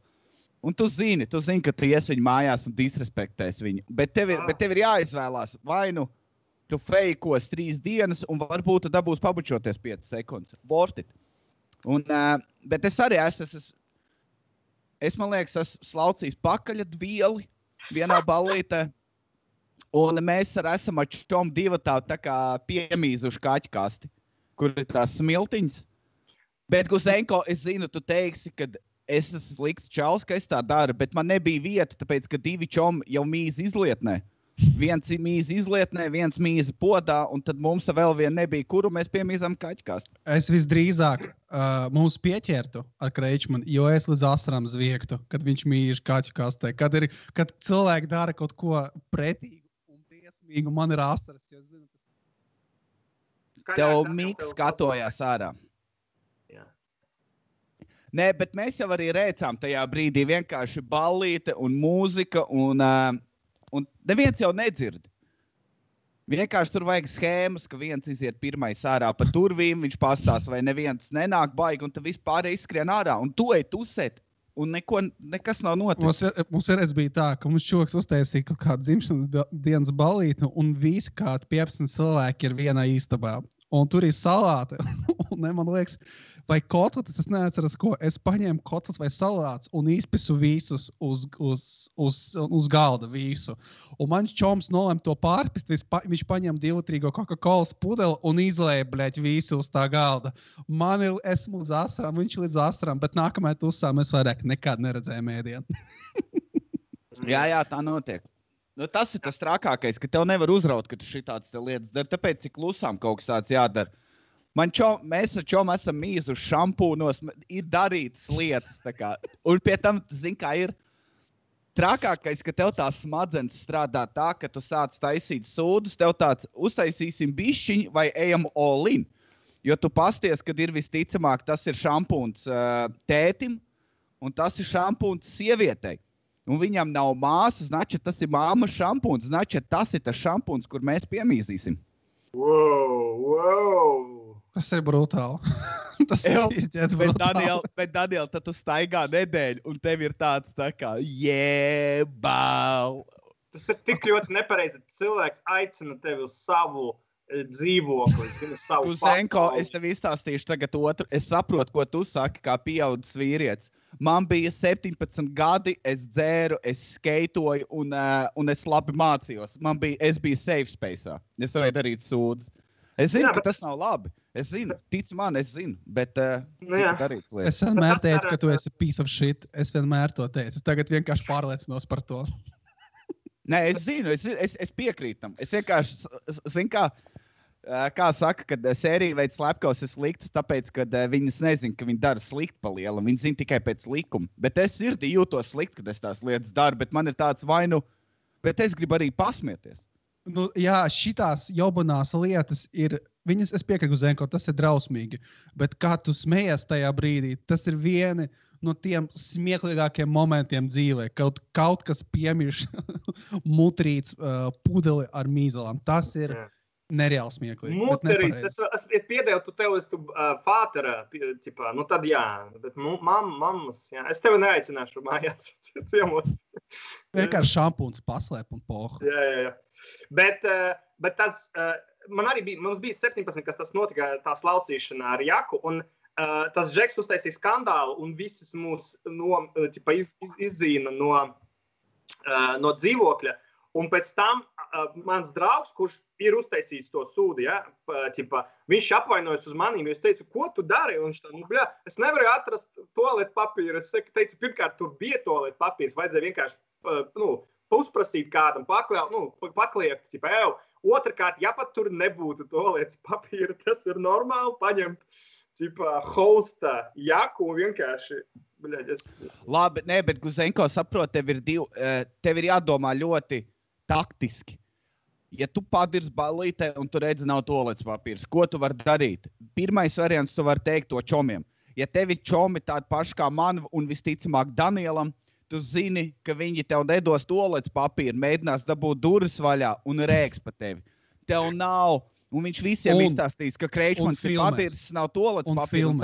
Un tu zini, ka tu ies viņu mājās un disrespektēs viņu. Bet tev ir jāizvēlās, vai nu tu feikos 3 dienas un varbūt tu dabūs pabučoties 5 sekundes. Worth it. Bet es arī man liekas, esmu slaucījis pakaļat vieli vienā ballītē. Un mēs esam ar čom divatā tā kā piemīzuši kaķu kasti, kur ir tās smiltiņas. Bet, Guzenko, es zinu, tu teiksi, ka es esmu slikts čals, ka es tā daru, bet man nebija vieta, tāpēc, ka 2 čomi jau mīz izlietnē. Viens mīz izlietnē, viens mīz podā, un tad mums vēl vien nebija, kuru mēs piemīzam kaķkāstu. Es visdrīzāk mums pieķertu ar Kreičmanu, jo es līdz asarām zviegtu, kad viņš mīž kaķkastē. Kad cilvēki dara kaut ko pretīgu un briesmīgu, man ir asaras, jo es zinu, Tev Miks skatojās ārā. Nē, bet mēs jau arī rēcām tajā brīdī vienkārši ballīte un mūzika, un neviens jau nedzird. Vienkārši tur vajag schēmas, ka viens iziet pirmais ārā pa durvīm, viņš pastās, vai neviens nenāk baigi, un tad vispār izskrien ārā, un tu ej tusēt, un nekas nav noticis. Mums vienreiz bija tā, ka mums čoks uztaisīja kaut kādu dzimšanas dienas ballīti, un visi kādi 15 cilvēki ir vienā istabā. Un tur ir salāti, un man liekas, vai kotletes, es neatceros, ko. Es paņēmu kotletes vai salāts un izpisu visus uz galda visu. Un mans čoms nolēma to pārpist, viņš paņēma 2-litrīgo Coca-Colas pudeli un izlēja, visu uz tā galda. Esmu līdz asarām, viņš līdz asarām, bet nākamajā tusā mēs vairāk nekad neredzējām ēdienu. Jā, tā notiek. Tas ir tas trakākais, ka tev nevar uzraut, ka tu šitādas lietas dari, tāpēc cik klusām kaut kas tāds jādara. Mēs ar čom esam mīzuši šampūnos, ir darītas lietas. Un pie tam, zini, kā ir trakākais, ka tev tās smadzenes strādā tā, ka tu sāc taisīt sūdus, tev tāds uztaisīsim bišķiņu vai ejam all in. Jo tu pasties, kad ir visticamāk, tas ir šampūns tētim un tas ir šampūns sievietei. Un viņam nav māsas, znači tas ir māmas šampūns, znači tas ir tas šampūns, kur mēs piemīzīsim. Wow! Tas ir brutāli. Tas ir izķēts brutāli. Bet, Daniel, tad tu staigā nedēļu, un tev ir tāds tā kā, jēbau. Tas ir tik ļoti nepareizi. Cilvēks aicina tevi uz savu dzīvokli, uz savu Zenko, pasauli. es tev izstāstīšu tagad otru. Es saprotu, ko tu saki, kā pieaudzis vīrietis. Man bija 17 gadi, es dzēru, es skeitoju, un es labi mācījos. Es biju safe space'ā. Es varēju darīt sūdzes. Es zinu, ka tas nav labi. Es zinu, tic man, es zinu, bet darīt lietas. Es vienmēr teicu, ka tu esi piece of shit. Es vienmēr to teicu. Es tagad vienkārši pārliecinos par to. Nē, es zinu, es piekrītu tam. Es vienkārši, zinu, kā saka, kad sērija veids slepkavas ir sliktas, tāpēc, ka viņas nezina, ka viņi dara slikti pa lielu. Viņi zina tikai pēc likuma. Bet es sirdī jūtos slikti, kad es tās lietas daru, bet man ir tāds vainu, bet es gribu arī pasmieties. Nu, jā, šitās jaubanās lietas ir, viņas, es piekrītu Zenko, tas ir drausmīgi, bet kā tu smejies tajā brīdī, tas ir vieni no tiem smieklīgākiem momentiem dzīvē, kaut kas piemirš mutrīts pudeli ar mīzelām. Tas ir nereāli smieklīgi. Mutrīts, es piedevu, tu tev esi fātera, nu tad jā, bet mammas, jā. Es tevi neaicināšu mājās ciemos. Vienkārši šampūns paslēp un pohu. Jā. Bet tas, mums bija 17, kas tas notika, tā slausīšana ar Jaku, un tas Džeks uztaisīja skandālu, un visus mūs izdzīna no dzīvokļa. Un pēc tam mans draugs, kurš ir uztaisījis to sūdu, viņš apvainojas uz manīm, jo es teicu, ko tu dari? Un viņš tā, es nevaru atrast toaletu papīru. Es teicu, pirmkārt, tur bija toaletu papīrs, vajadzēja vienkārši uzprasīt kādam, pakliekt, otrkārt, ja pat tur nebūtu toaletu papīra, tas ir normāli paņemt hosta Jaku un vienkārši, Labi, bet Guzenko saprot, tev ir jādomā ļoti taktiski. Ja tu padirsi ballītē un tu redzi nav toaletes papīrs, ko tu vari darīt? Pirmais variants tu vari teikt to čomiem. Ja tevi čomi tādi paši kā man un visticamāk Danielam, tu zini, ka viņi tev nedos toaletes papīru, mēģinās dabūt durvis vaļā un rēks pa tevi. Tev nav, un viņš visiem izstāstīs, ka Kreičmans ir padirsis, nav toaletes papīru.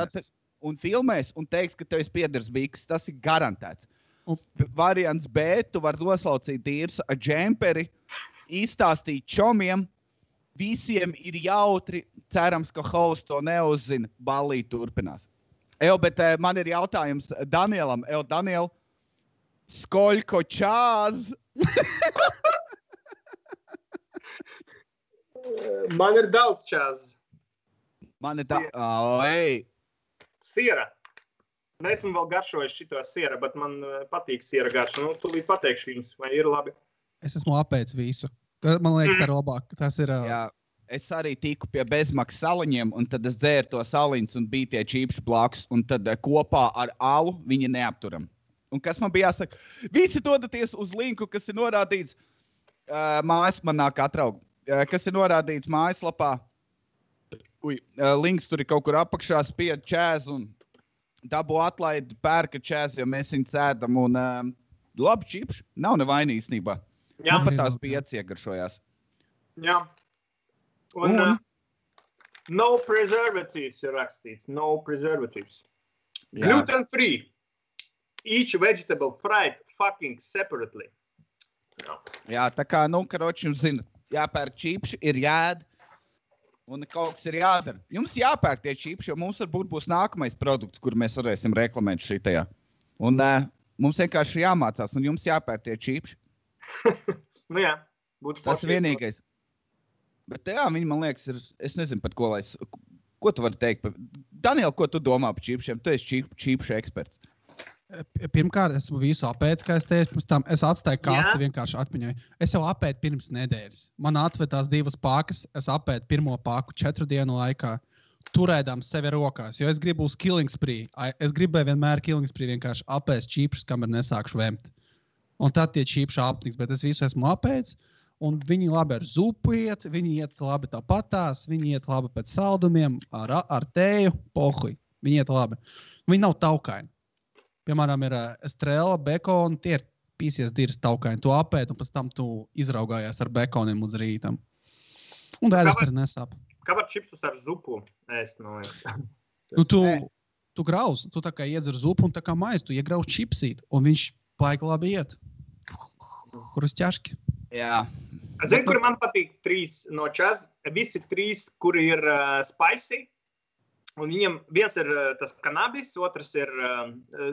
Un filmēs un teiks, ka tev ir piedars biks. Tas ir garantēts. Variants B, tu vari noslaucīt īrs ar džemperi, izstāstīt čomiem, visiem ir jautri, cerams, ka hosts to neuzzina, ballīt turpinās. Bet man ir jautājums Danielam. Daniel, skoļko čāz? Man ir daudz čāz. Man ir Siera. Neesmu vēl garšojis šito siera, bet man patīk siera garša. Nu, tūlīt pateikšu jums, vai ir labi. Es esmu apēdis visu. Man liekas, tā ir labāk. Tas ir... Jā, es arī tiku pie bezmaksas saliņiem, un tad es dzēru to saliņus un bija tie čīpši blakus, un tad kopā ar alu viņi neapturam. Un kas man bija jāsaka? Visi dodaties uz linku, kas ir norādīts man nāk atraugu. Kas ir norādīts mājaslapā. Links tur ir kaut kur apakšā, spied čēz un dabū atlaidi, pērka čēz, jo mēs viņu cēdam un labi čipši. Nav nevaini īstenībā. Jā. Man pat tās bija ieciegaršojās. Jā. Un no preservatives ir rakstīts. No preservatives. Jā. Gluten free. Each vegetable fried fucking separately. Jā, tā kā, karoči, jums zina, jāpērk čipši, ir jāēd. Un kaut kas ir jādara. Jums jāpērk tie čipši, jo mums varbūt būs nākamais produkts, kur mēs varēsim reklamēt šitajā. Un mums vienkārši jāmācās, un jums jāpērk tie čipši. Nu jā, būtu tas vienīgais. Bet jā, viņi man liekas ir, es nezinu pat ko tu vari teikt. Daniel, ko tu domā par čipšiem? Tu esi čipšu eksperts. Pirmkārt, esmu visu apēdis, kā es teicu, pirms tam es atstāju kasti vienkārši atmiņai. Es jau apēdu pirms nedēļas. Man atvedās 2 pakas, es apēdu pirmo paku 4 dienu laikā, turēdām sevi rokās, jo es gribu uz killing spree. Es gribēju vienmēr killing spree vienkārši apēst čīpšus, kamēr nesākšu vemt. Un tad tie čīpši apniks, bet es visu esmu apēdis, un viņi labi ar zupu iet, viņi iet labi tāpatās, viņi iet labi pēc saldumiem, ar tēju, pohuj. Viņi iet labi. Viņi nav taukaini. Piemēram, ir estrela, bekona, tie ir pīsies dirs taukaini. Tu apēd, un pēc tam tu izraugājies ar bekoniem līdz rītam. Un dēļas arī nesāp. Kā var čipsus ar zupu ēst, man liekas? Nu, tu grauz, tu tā kā iedzer zupu un tā kā maizi, tu iegrauz čipsīt, un viņš paika labi iet. Hrustjaški. Jā. Zini, kuri man patīk 3 no čaz, visi 3, kuri ir spicy, un viņam viens ir tas kanabis, otrs ir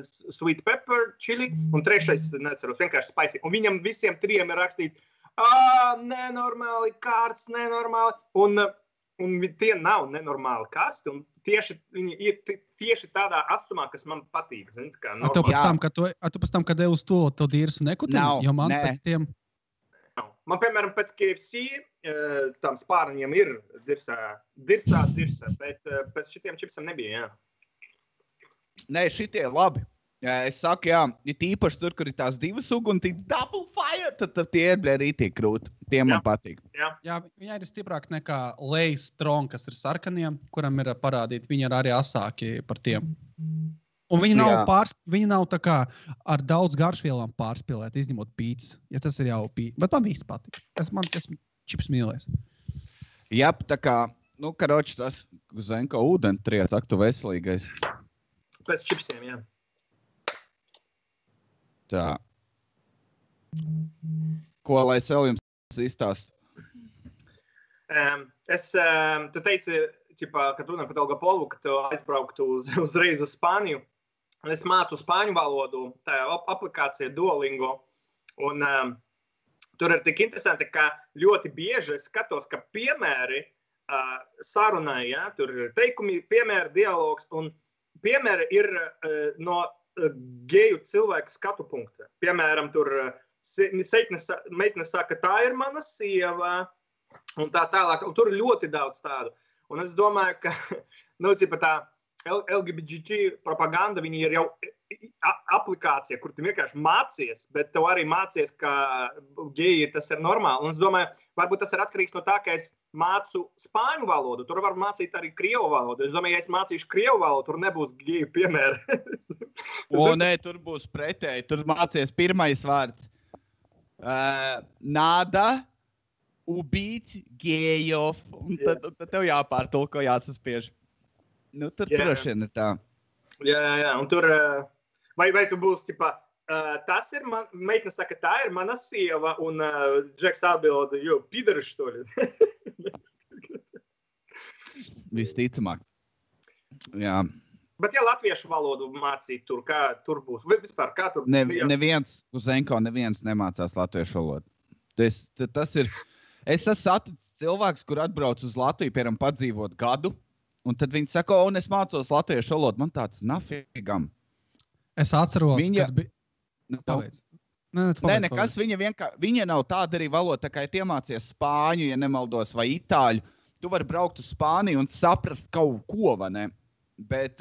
sweet pepper chili, un trešais, neceros, vienkārši spicy. Un viņam visiem 3 ir rakstīts, nenormāli kārts, nenormāli, un tie nav nenormāli kārsti, un viņi ir tieši tādā asumā, kas man patīk. Zini, kā Tu pēc tam, kad devi uz to dirsu nekutini, jo man pēc tiem... Man, piemēram, pēc KFC tam spārniņiem ir dirsā, bet pēc šitiem čipsam nebija, jā. Nē, šitie labi. Es saku, jā, īpaši tur, kur ir tās 2 sugu un double fire, tad tie ir rītīgi krūti. Tie man patīk. Jā, viņi ir stiprāk nekā Lay's Strong, kas ir sarkaniem, kuram ir parādīti, viņi ir arī asāki par tiem. Un viņi nav tā kā ar daudz garšvielām pārspīlēt, izņemot pīcis. Ja tas ir jau pīcis. Bet man viss patīk. Man čips mīlēs. Jā, tā kā, karoči tas Zenko ūdeni triec, ak tu veselīgais. Pēc čipsiem, jā. Tā. Ko lai es vēl jums izstāstu? Tu teici, kad runā par Elgapolu, ka tu aizbrauktu uzreiz uz Spāniju. Es mācu spāņu valodu, tā aplikācija Duolingo, un tur ir tik interesanti, ka ļoti bieži es skatos, ka piemēri sarunai, ja, tur ir teikumi, piemēri, dialogs, un piemēri ir no geju cilvēku skatu punkta. Piemēram, tur meitne saka, tā ir mana sieva, un tā tālāk, un tur ir ļoti daudz tādu. Un es domāju, ka, tā LGBT propaganda, viņi ir jau aplikācija, kur tu vienkārši mācies, bet tev arī mācies, ka geji tas ir normāli. Un es domāju, varbūt tas ir atkarīgs no tā, ka es mācu spāņu valodu, tur var mācīt arī krievu valodu. Es domāju, ja es mācīšu krievu valodu, tur nebūs geju piemēri. Nē, tur būs pretēji, tur mācies pirmais vārds. Nada, ubīts, gejov, un tad tev jāpārtulko, jāsaspiež. Tur droši vien ir tā. Jā, un tur, vai tu būs, tas ir meitne saka, tā ir mana sieva, un Džeks atbilda, jo, pidari, što li? Visticamāk. Jā. Bet ja latviešu valodu mācīt tur, kā tur būs? Vai vispār, kā tur? Neviens, uz Zenko neviens nemācās latviešu valodu. Tas ir, es esmu saticis cilvēks, kur atbrauc uz Latviju, piemēram, padzīvot gadu, un tad viņi saka, un es mācos latviešu valodu. Man tāds nafigam. Es atceros, kad bija... Paveic. Nē, nekas. Viņa nav tāda arī valoda, tā kā ja iemācies spāņu, ja nemaldos, vai itāļu. Tu vari braukt uz Spāniju un saprast kaut ko, vai ne? Bet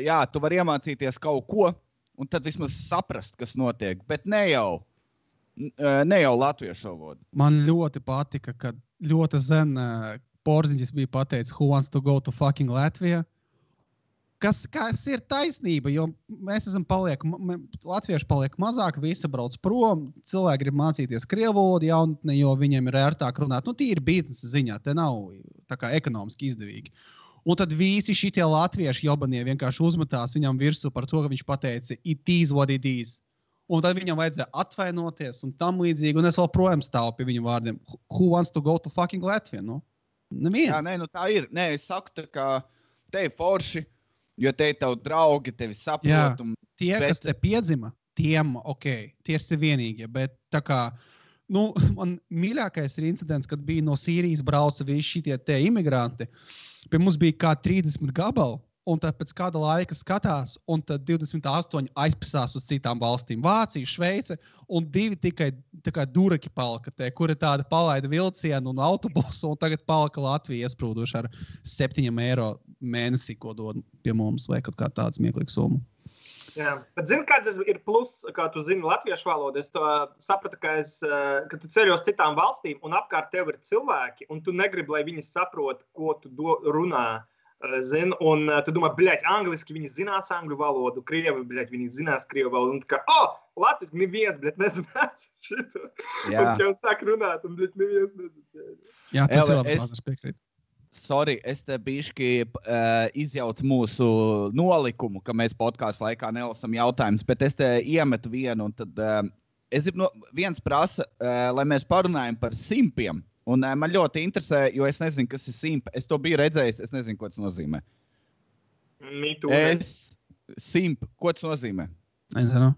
jā, tu vari iemācīties kaut ko, un tad vismaz saprast, kas notiek. Bet ne jau latviešu valodu. Man ļoti patika, kad ļoti zen Porziņģis bija pateicis, who wants to go to fucking Latvija? Kas ir taisnība, jo mēs latvieši paliek mazāk, visi brauc prom, cilvēki grib mācīties krievu valodu jaunatnē, jo viņiem ir ērtāk runāt. Tīri biznesa ziņā, te nav tā kā ekonomiski izdevīgi. Un tad visi šitie latvieši jobanie vienkārši uzmetās viņam virsū par to, ka viņš pateica, it is what it is. Un tad viņam vajadzēja atvainoties un tam līdzīgi, un es vēl projām stāvu pie viņu vārdiem. Who wants to go to fucking Latvia? Neviens. Jā, tā ir. Nē, es saku, tā kā te ir forši, jo te ir tavi draugi, tevi saprot. Tie, kas te piedzima, tiem, tie ir vienīgie, bet tā kā, man mīļākais ir incidents, kad bija no Sīrijas brauca visi šitie te imigranti. Pie mums bija kā 30 gabali. Un tad pēc kāda laika skatās, un tad 28 aizpasās uz citām valstīm. Vācija, Šveice, un 2 tikai tā kā duraki palika te, kuri tāda palaida vilcienu un autobusu, un tagad palika Latvija iesprūduši ar 7 eiro mēnesī, ko dod pie mums, vai kaut kā tāds smieklīgs summa. Jā, bet zini, kāds ir plus, kā tu zini latviešu valodu? Es to sapratu, ka tu ceļo uz citām valstīm, un apkārt tev ir cilvēki, un tu negribi, lai viņi saprot, ko tu runā. Zin, un tu domā, bļaļ, angliski viņi zinās angļu valodu, krievi, bļaļ, viņi zinās krievu valodu, un tā kā, latviski neviens, bļaļ, nezinās šito. Jā. Un jau sāk runāt, un bļaļ, neviens nezinās. Jā, tas ir labi, es piekrītu. Sorry, es te bišķi izjaucu mūsu nolikumu, ka mēs podkāstu laikā nelasam jautājumus, bet es te iemetu vienu, un tad es gribu viens prasa, lai mēs parunājam par simpiem. Un man ļoti interesē, jo es nezinu, kas ir simp. Es to biju redzējis, es nezinu, ko tas nozīmē. Simp, ko tas nozīmē? Nezinu.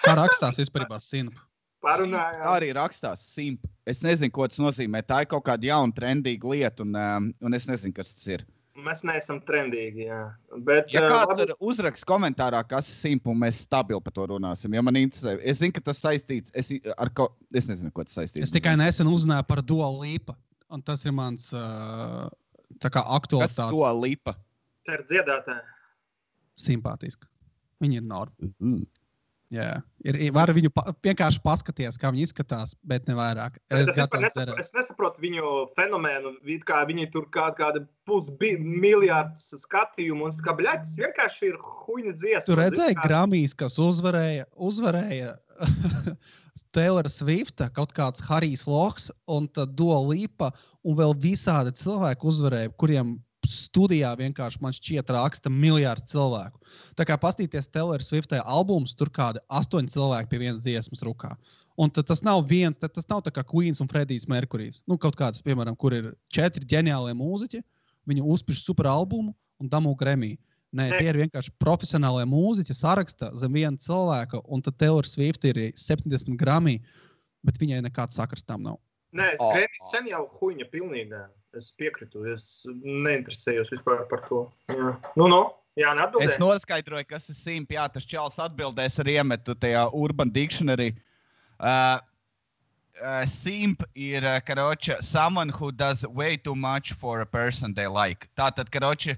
Kā rakstās vispārībā simp? Parunājām. Arī rakstās simp. Es nezinu, ko tas nozīmē. Tā ir kaut kāda jauna, trendīga lieta, un es nezinu, kas tas ir. Mēs neesam trendīgi, jā. Bet, ja kāds ir uzraksts komentārā, kas ir simp, un mēs stabili par to runāsim, ja man interesē. Es zinu, ka tas saistīts es nezinu, ko tas saistīts. Es tikai nesen uzzināju par Dua Lipa, un tas ir mans tā kā aktualitātes. Kas Dua Lipa? Tā ir dziedātāja. Simpātiski. Viņi ir norma. Jā, var viņu vienkārši paskatīties, kā viņi izskatās, bet ne vairāk. Es nesaprotu viņu fenomēnu, kā viņi tur kāda pusmiljārds skatījumu, un kā, bļaļ, tas vienkārši ir huņa dziesma. Tu redzēji Grammys, kas uzvarēja Taylor Swifta, kaut kāds Harijs Loks, un tad Dua Lipa, un vēl visādi cilvēki uzvarēja, kuriem studijā vienkārši man šķiet raksta miljārdu cilvēku. Tā kā pastīties Taylor Swiftē albums, tur kādi 8 cilvēki pie vienas dziesmas rukā. Un tas nav tas nav tā kā Queens un Freddijs Merkurijs. Nu, kaut kāds, piemēram, kur ir 4 ģeniālie mūziķi, viņi uzpiš super albumu un damū Grammy. Nē, tie ir vienkārši profesionālie mūziķi, saraksta zem viena cilvēka, un tad Taylor Swift ir 70 Grammy, bet viņai nekāds sakars tam nav. Nē, Grammy sen jau huņa pilnīgā. Es piekritu, es neinteresējos vispār par to. Jā. Jā, neatbildēju. Es noskaidroju, kas ir simp. Jā, tas čals atbildēs ar iemetu tajā Urban Dictionary. Simp ir, karoče, someone who does way too much for a person they like. Tātad, karoče,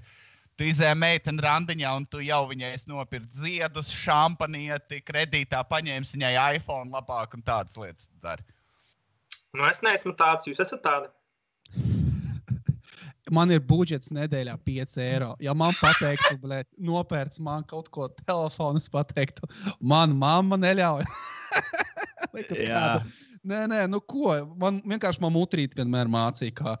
tu izēji meiteni randiņā un tu jau viņai nopirkt ziedus, šampanieti, kredītā paņēmis viņai iPhone labāk un tādas lietas dari. Es neesmu tāds, jūs esat tādi. Man ir budžets nedēļā 5 eiro. Ja man pateiktu, nopērts man kaut ko telefonu, es pateiktu, man mamma neļauj. Nē, nu ko? Man mutrīt vienmēr mācīja,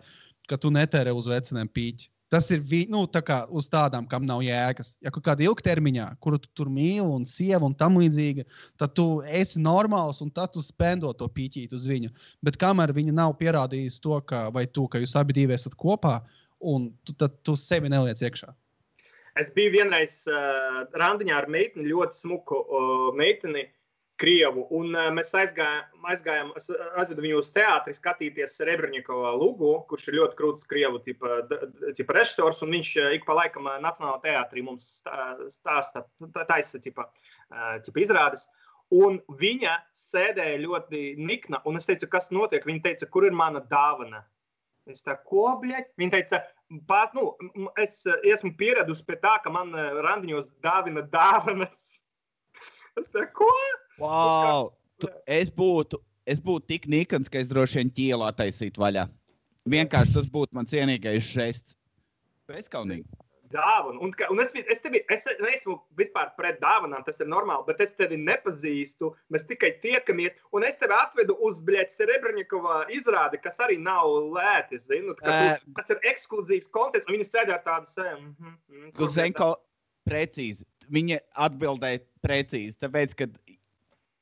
ka tu netērē uz veciniem pīķi. Tas ir tā kā uz tādām, kam nav jēgas. Ja kaut kāda ilgtermiņā, kuru tu tur mīli un sieva un tam līdzīga, tad tu esi normāls un tad tu spendo to pīķīt uz viņu. Bet kamēr viņa nav pierādījusi to, ka jūs abi divi esat kopā, un tad tu sevi neliec iekšā. Es biju vienreiz randiņā ar meiteni, ļoti smuku meiteni, krievu, un mēs aizgājām, es aizvedu viņu uz teātri skatīties Serebrņikova Lugu, kurš ir ļoti krūts krievu tipa režisors, un viņš ik pa laikam Nacionālā teātrī mums taisa izrādes. Un viņa sēdēja ļoti nikna, un es teicu, kas notiek? Viņa teica, kur ir mana dāvana? Es tā, ko, bļaļ? Viņa teica, es esmu pieradusi pie tā, ka man randiņos dāvina dāvanas. Es tā, ko? Wow! Es būtu tik nikans, ka es droši vien ķielā taisītu vaļā. Vienkārši tas būtu mans cienīgais žests. Bezkaunīgi. Dāvanu. Un es neesmu vispār pret dāvanām, tas ir normāli, bet es tevi nepazīstu, mēs tikai tiekamies, un es tevi atvedu uz, Serebrņikova izrādi, kas arī nav lēti, zinu, kas ir ekskluzīvs konteksts, un viņi sēdē ar tādu sēmu. Tu zini, ko precīzi. Viņa atbildēja precīzi, tāpēc, ka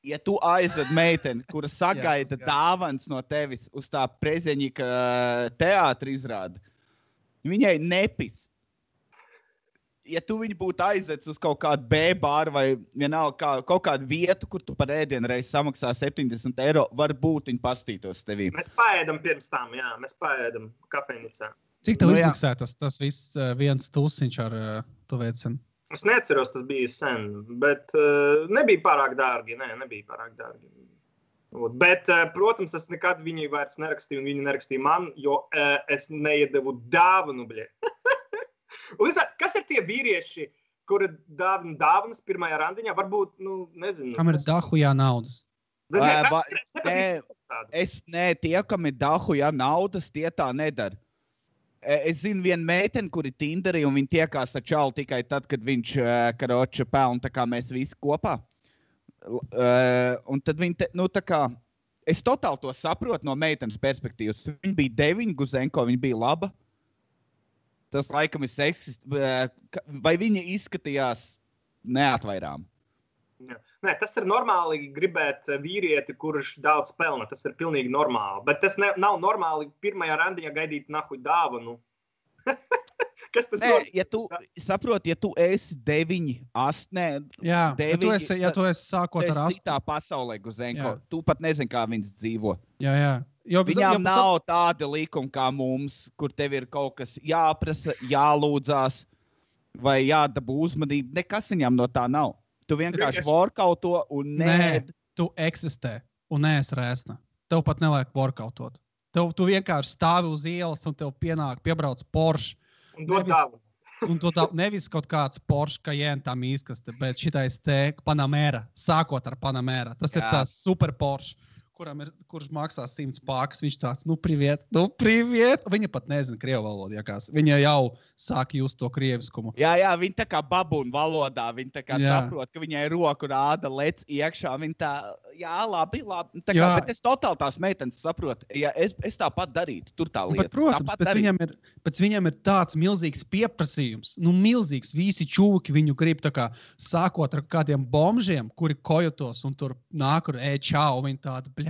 ja tu aizved meiteni, kura sagaida dāvans no tevis uz tā Prezeņika teātra izrādi, viņai nepis. Ja tu viņu būtu aizvedis uz kaut kādu B-bāru vai vienalga kaut kādu vietu, kur tu par ēdienu reizi samaksā 70 eiro, varbūt viņi pastītos tevī. Mēs paēdam pirms tam, jā, mēs paēdam kafejnicā. Cik tev izmaksā tas viss viens tusiņš ar to veicinu? Es neatceros, tas bija sen, bet nebija pārāk dārgi, nebija pārāk dārgi. Bet, protams, es nekad viņai vairs nerakstīju, un viņa nerakstīja man, jo es neiedevu dāvanu, bļē. Kas ir tie vīrieši, kuri dāvina dāvanas pirmajā randiņā? Varbūt, nezinu. Kam ir dahujā naudas? Tie, kam ir dahujā naudas, tie tā nedara. Es zinu vienu meiteni, kuri Tinderī, un viņi tiekās ar čalu tikai tad, kad viņš karoči pelna, tā kā mēs visi kopā. Un tad viņi, tā kā, es totāli to saprotu no meitenes perspektīvas. Viņa bija 9, Guzenko, viņa bija laba. Tas laikam ir seksist, vai viņa izskatījās neatvairām? Nē, tas ir normāli gribēt vīrieti, kurš daudz pelna. Tas ir pilnīgi normāli. Bet tas nav normāli pirmajā randiņā gaidīt nahuj dāvanu. Kas tas ir? Ja tu saproti, ja tu esi 9, 8, Jā, 9, ja tu esi sākot ar 8. citā pasaulē, Guzenko, Jā. tu pat nezini, kā viņas dzīvo. Jā. Viņām nav tāda likuma kā mums, kur tev ir kaut kas jāprasa, jālūdzās vai jādabū uzmanība. Nekas viņām no tā nav. Tu vienkārši workauto un Nē, tu eksistē un neesi rēsna. Tev pat nevajag workautot. Tu vienkārši stāvi uz ielas un tev piebrauc Porsche. Un dod dāvanu. Un tu nevis kaut kāds Porsche Cayenne tā mīskaste, bet šitais te Panamera, sākot ar Panamera. Tas ir tās super Porsche, kurš maksā 100 pākas. Viņš tāds, priviet. Viņa pat nezina krievu valodu, jākās. Viņa jau sāk just to krieviskumu. Jā, viņa tā kā babūna valodā, viņa tā kā saprot, ka viņai roku rāda lec iekšā, viņa tā, labi. Tā kā, bet es totāli tās meitenes saprotu, ja es tāpat darītu, tur tā lieta. Bet, protams, pēc viņam ir tāds milzīgs pieprasījums, milzīgs, visi čūki viņu grib tā kā sākot ar kādiem bomžiem, kuri kojotos un tur nāk ar čau, viņi tāda,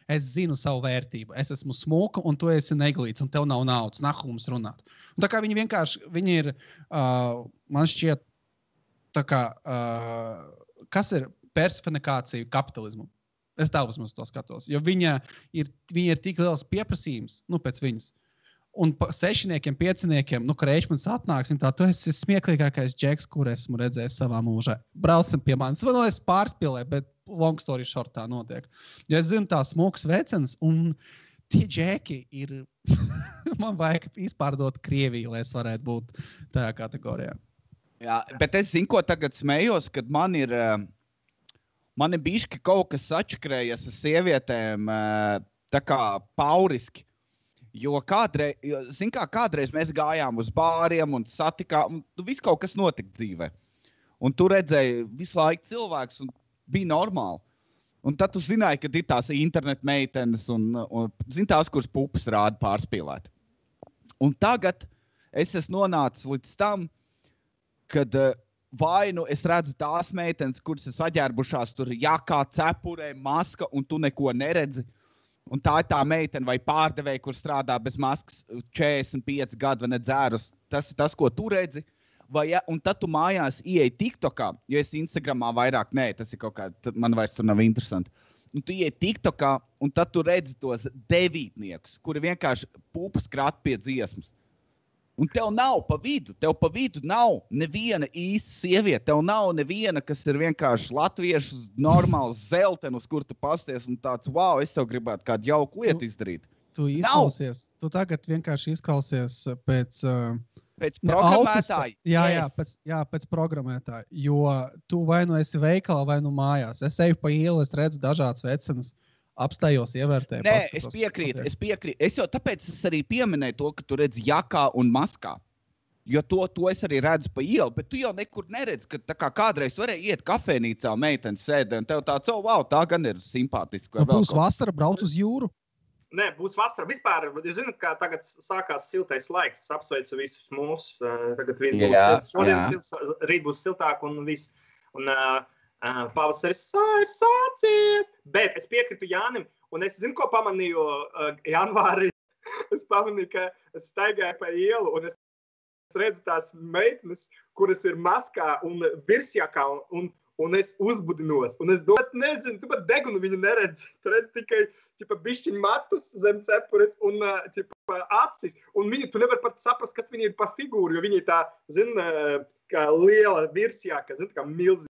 es zinu savu vērtību. Es esmu smuka, un tu esi neglīts, un tev nav naudas. Nahu mums runāt. Un tā kā viņi ir, man šķiet, tā kā, kas ir personifikācija kapitalismu? Es tā uzmanīgi to skatos. Jo viņa ir tik liels pieprasījums, pēc viņas. Un 6-niekiem, 5-niekiem, Kreičmans atnāks, un tā, tu esi smieklīgākais džeks, kur esmu redzējis savā mūžā. Braucam pie manis. Es pārspīlēju, bet long story short tā notiek. Jo es zinu tās smukas vecenas, un tie džeki ir, man vajag izpārdot Krieviju, lai es varētu būt tajā kategorijā. Jā, bet es zinu, ko tagad smējos, kad man ir bišķi kaut kas atšķirējies ar sievietēm tā kā pauriski. Jo kādreiz mēs gājām uz bāriem un satikām, un viss kaut kas notika dzīvē. Un tu redzēji visu laiku cilvēkus, un bija normāli. Un tad tu zināji, ka ir tās internet meitenes un tās, kuras pupas rāda pārspīlēt. Un tagad es esmu nonācis līdz tam, kad vai es redzu tās meitenes, kuras ir saģērbušās tur jakā, cepurē, maska, un tu neko neredzi. Un tā ir tā meitene vai pārdevēja, kur strādā bez maskas 45 gadu vai nedzērus. Tas ir tas, ko tu redzi. Un tad tu mājās ieej TikTokā, jo es Instagramā vairāk nē, tas ir kaut kā, man vairs tur nav interesanti. Un tu ieej TikTokā, un tad tu redzi tos 9-niekus, kuri vienkārši pupas krāt pie dziesmas. Un tev nav pa vidu nav neviena īsta sieviete, tev nav neviena, kas ir vienkārši latviešu normāls zeltenis, kur tu pasties un tāds, wow, es tev gribētu kādu jauku lietu izdarīt. Tu tagad vienkārši izklausies pēc programmētāja. Pēc programmētāja, jo tu vai nu esi veikalā, vai nu mājās. Es eju pa ielu, es redzu dažādas vecenas. Apstājos, ievērtēju. Nē, es piekrītu. Es jau tāpēc arī pieminēju to, ka tu redzi jakā un maskā. Jo to es arī redzu pa ielu, bet tu jau nekur neredzi, ka tā kā kādreiz varēja iet kafēnīcā, meiteni sēdē, un tev tāds, wow, tā gan ir simpātiski. Būs vasara, brauc uz jūru? Nē, būs vasara. Vispār, jūs zināt, kā tagad sākās siltais laiks. Es apsveicu visus mūs. Tagad viss būs silts. Šodien rīt būs siltāk un viss. Un pavasaris ir sācies. Bet es piekritu Jānim, un es zinu, ko pamanīju janvārī. Es pamanīju, ka es staigāju pa ielu, un es redzu tās meitenes, kuras ir maskā un virsjakā, un es uzbudinos. Un es nezinu, tu pat degunu viņu neredzi. Tu redzi tikai bišķiņu matus zem cepures un acis. Un tu nevar pat saprast, kas viņi ir pa figūru, jo viņi tā, kā liela virsjaka, kā milzīga.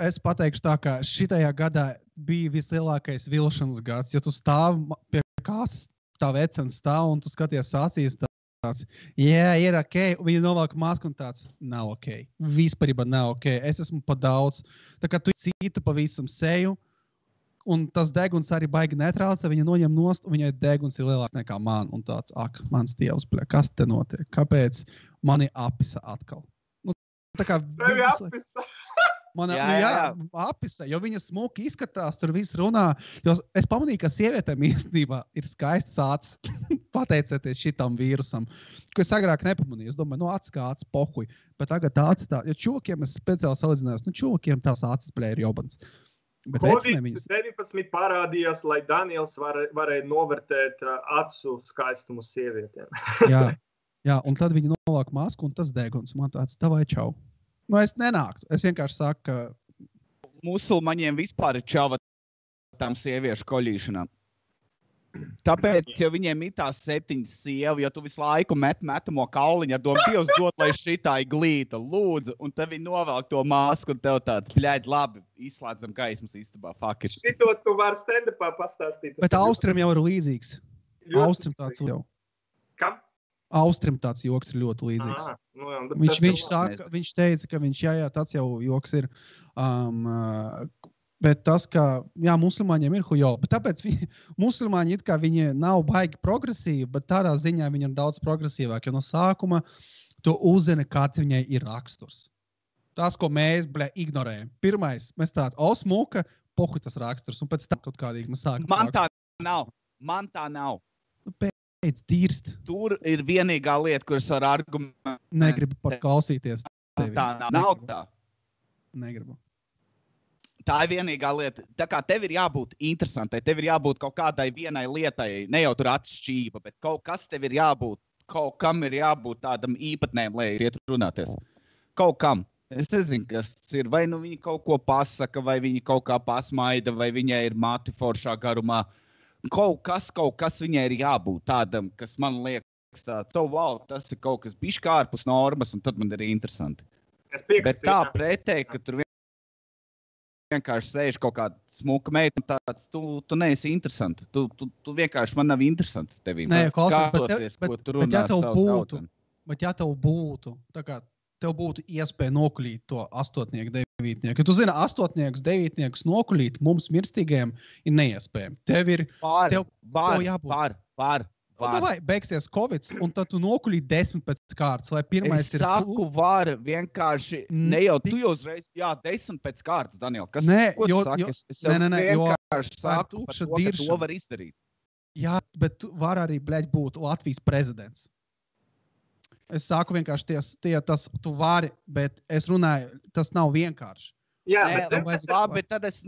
Es pateikšu tā, ka šitajā gadā bija vislielākais vilšanas gads, jo tu stāv pie kāsas, tā vecens stāv un tu skaties acīs tāds, ir ok, viņi novelk masku un tāds, nav ok, vispārībā nav ok, es esmu pa daudz, tā kā tu citu pavisam seju, un tas deguns arī baigi netraucē, viņa noņem nost, un viņai deguns ir lielāks nekā man, un tāds, mans dievs, bļa, kas te notiek? Kāpēc mani apisa atkal? Nu, tā kā Tevi apisa. Apisa, jo viņa smuki izskatās, tur viss runā, jo es pamanīju, ka sievietēm īstenībā ir skaists acis, pateicoties šitam vīrusam, ko es agrāk nepamanīju. Es domāju, acis kā acis pohuj, bet tagad acis tā, jo čūkiem es speciāli salīdzinājos, čūkiem tās acis, bļa, ir jobans. Bet Covid-19 parādījās, lai Daniels varēja novērtēt acu skaistumu sievietēm. jā, un tad viņi novāk masku, un tas deguns man tāds, tavai čau. Nu, es nenāktu. Es vienkārši saku, ka musulmaņiem vispār ir čava tām sieviešu koļīšanām. Tāpēc, ja viņiem ir tās 7 sievu, ja tu visu laiku metamo kauliņu ar domu, Dievs dod, lai šitā ir glīta, lūdzu, un tad viņi novelk to masku, un tev tāds, bļaļ, labi, izslēdzam gaismas istabā, fuck it. Šito tu vari stand-upā pastāstīt. Bet Austrim jau ir līdzīgs. Austrim tāds jau. Kam? Austrim tāds joks ir ļoti līdzīgs. Viņš teica, ka tāds jau joks ir. Bet tas, ka, musulmaņiem ir hujo. Bet tāpēc musulmaņi it kā viņi nav baigi progresīvi, bet tādā ziņā viņi ir daudz progresīvāki. Jo no sākuma tu uzzini, kāds viņai ir raksturs. Tas, ko mēs, ignorējam. Pirmais, mēs tādi, smuka, pohu tas raksturs. Un pēc tam kaut kādīgi mēs sākam. Man tā nav. Dirst. Tur ir vienīgā lieta, kuras var argumentēt. Negribu pat klausīties. Tā nav tā. Negribu. Tā ir vienīgā lieta. Tā kā tev ir jābūt interesantai, tev ir jābūt kaut kādai vienai lietai, ne jau tur atšķība, bet kaut kas tev ir jābūt, kaut kam ir jābūt tādam īpatnēm, lai iet runāties. Kaut kam. Es nezinu, kas ir. Vai nu viņi kaut ko pasaka, vai viņi kaut kā pasmaida, vai viņai ir mati foršā garumā. Kaut kas viņai ir jābūt tādam, kas man liekas tāds, tas ir kaut kas bišķi ārpus normas, un tad man ir interesanti. Bet tā pretēji, ka tur vienkārši sēž kaut kāda smuka meita, un tāds, tu neesi interesanti. Tu vienkārši man nav interesanti tevī. Nē, klausies, bet ja tev būtu, tā kā tev būtu iespēja nokuļīt to 8. 9. Ja tu zini, 8. 9. nokuļīt mums mirstīgajiem ir neiespējami. Tev ir Var. Vai beigsies Covid, un tad tu nokuļīt 10 pēc kārtas, lai pirmais ir... Es saku, var vienkārši, ne jau tu jau uzreiz, 10 pēc kārtas, Daniel. Kas, ko tu saki? Es vienkārši saku, par to, ka to var izdarīt. Jā, bet tu var arī, būt Latvijas prezidents. Es saku vienkārši, tu vari, bet es runāju, tas nav vienkārši. Jā, bet tad es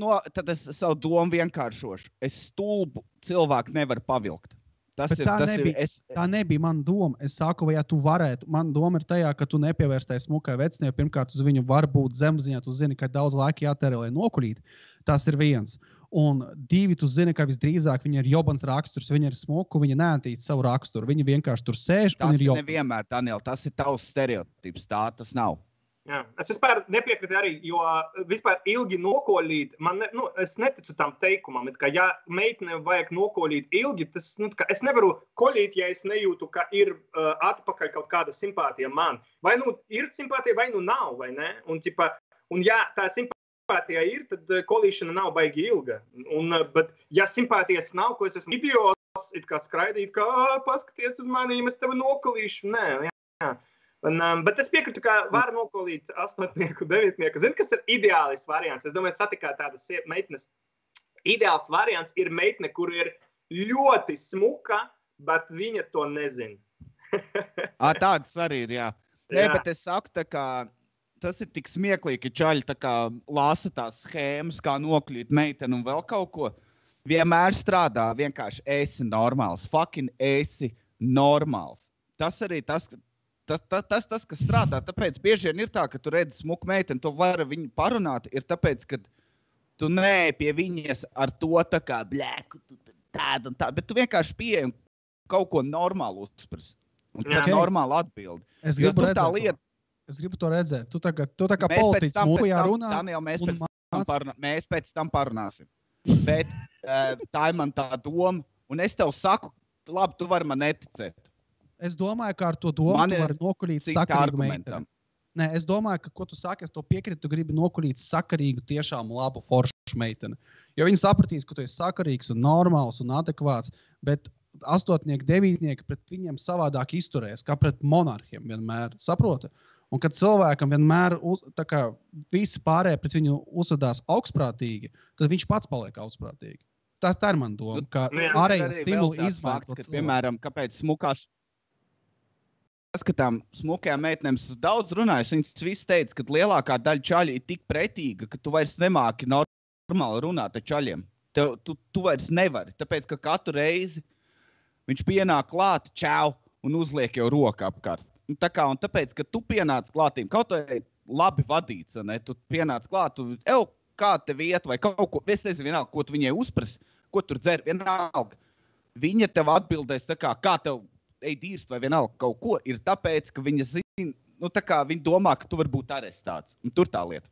savu domu vienkāršošu. Es stulbu cilvēku nevaru pavilkt. Tā nebija mana doma. Es saku, vai ja tu varētu, mana doma ir tajā, ka tu nepievērstais smukai vecnie, pirmkārt uz viņu var būt zemziņā, tu zini, ka daudz laika jātērē, lai nokuļīt. Tas ir viens. Un 2, tu zini, ka visdrīzāk viņa ir jobans raksturs, viņa ir smuku, viņa neantīst savu raksturu, viņa vienkārši tur sēž. Tas ir nevienmēr, Daniel, tas ir tavs stereotips, tā tas nav. Jā. Es vispār nepiekrītu arī, jo vispār ilgi nokoļīt, es neticu tam teikumam, ka ja meitene vajag nokoļīt ilgi, tas, es nevaru koļīt, ja es nejūtu, ka ir atpakaļ kaut kāda simpātija man. Vai ir simpātija, vai nav, vai ne? Un ja tā simpātija ir, tad kolīšana nav baigi ilga. Bet ja simpātijas nav, ko es esmu idiots, it kā skraidīt, ka paskaties uz mani, es tevi nokolīšu. Nē, jā. Bet es piekrītu, ka var nokolīt 8. 9. Zini, kas ir ideālis variants? Es domāju, satikāt tādas meitnes. Ideāls variants ir meitne, kur ir ļoti smuka, bet viņa to nezina. Tāds arī ir, jā. Nē, bet es saku, tas ir tik smieklīgi, ka čaļi lasa tās schēmas, kā nokļūt meiteni un vēl kaut ko. Vienmēr strādā, vienkārši esi normāls. Fucking esi normāls. Tas arī tas, kas strādā, tāpēc bieži vien ir tā, ka tu redzi smuku meiteni, tu vari viņu parunāt, ir tāpēc, ka tu neej pie viņas ar to tā kā blēku, tādu un tādu, bet tu vienkārši pieeji un kaut ko normālu uzspras. Un tad normāli atbildi. Es gribu to redzēt. Tu tā kā politiķis mūvijā runā. Daniel, mēs pēc tam parunāsim. Bet tā ir man tā doma, un es tev saku, labi, tu vari man neticēt. Es domāju, ka ar to domu tu vari nokuļīt sakarīgu meiteni. Nē, es domāju, ka, ko tu saki, es to piekrītu, tu gribi nokulīt sakarīgu, tiešām labu foršu meiteni. Jo viņi sapratīs, ka tu esi sakarīgs un normāls un adekvāts, bet astotnieki, devītnieki pret viņiem savādāk izturēs, kā pret monarhiem vienmēr, saproti? Un kad cilvēkam vienmēr visi pārējie pret viņu uzvedās augstprātīgi, tad viņš pats paliek augstprātīgi. Tā ir man doma, ka ārējie stimuli izmantot. Piemēram, kāpēc smukās paskatām smukajām meitenēm daudz runājas, viņas visi teica, ka lielākā daļa čaļu ir tik pretīga, ka tu vairs nemāki normāli runāt ar čaļiem. Tu vairs nevari, tāpēc, ka katru reizi viņš pienāk klāt, čau, un uzliek jau roku apkārt. Un tāpēc, ka tu pienāc klātīm, kaut vai labi vadīts, ne? Tu pienāc klāt, kā tev iet, vai kaut ko, es nezinu vienalga, ko tu viņai uzprasi, ko tur dzer, vienalga. Viņa tev atbildēs kā tev dīrst vai vienalga kaut ko, ir tāpēc, ka viņa zina, viņa domā, ka tu vari būt arestēts. Un tur tā lieta.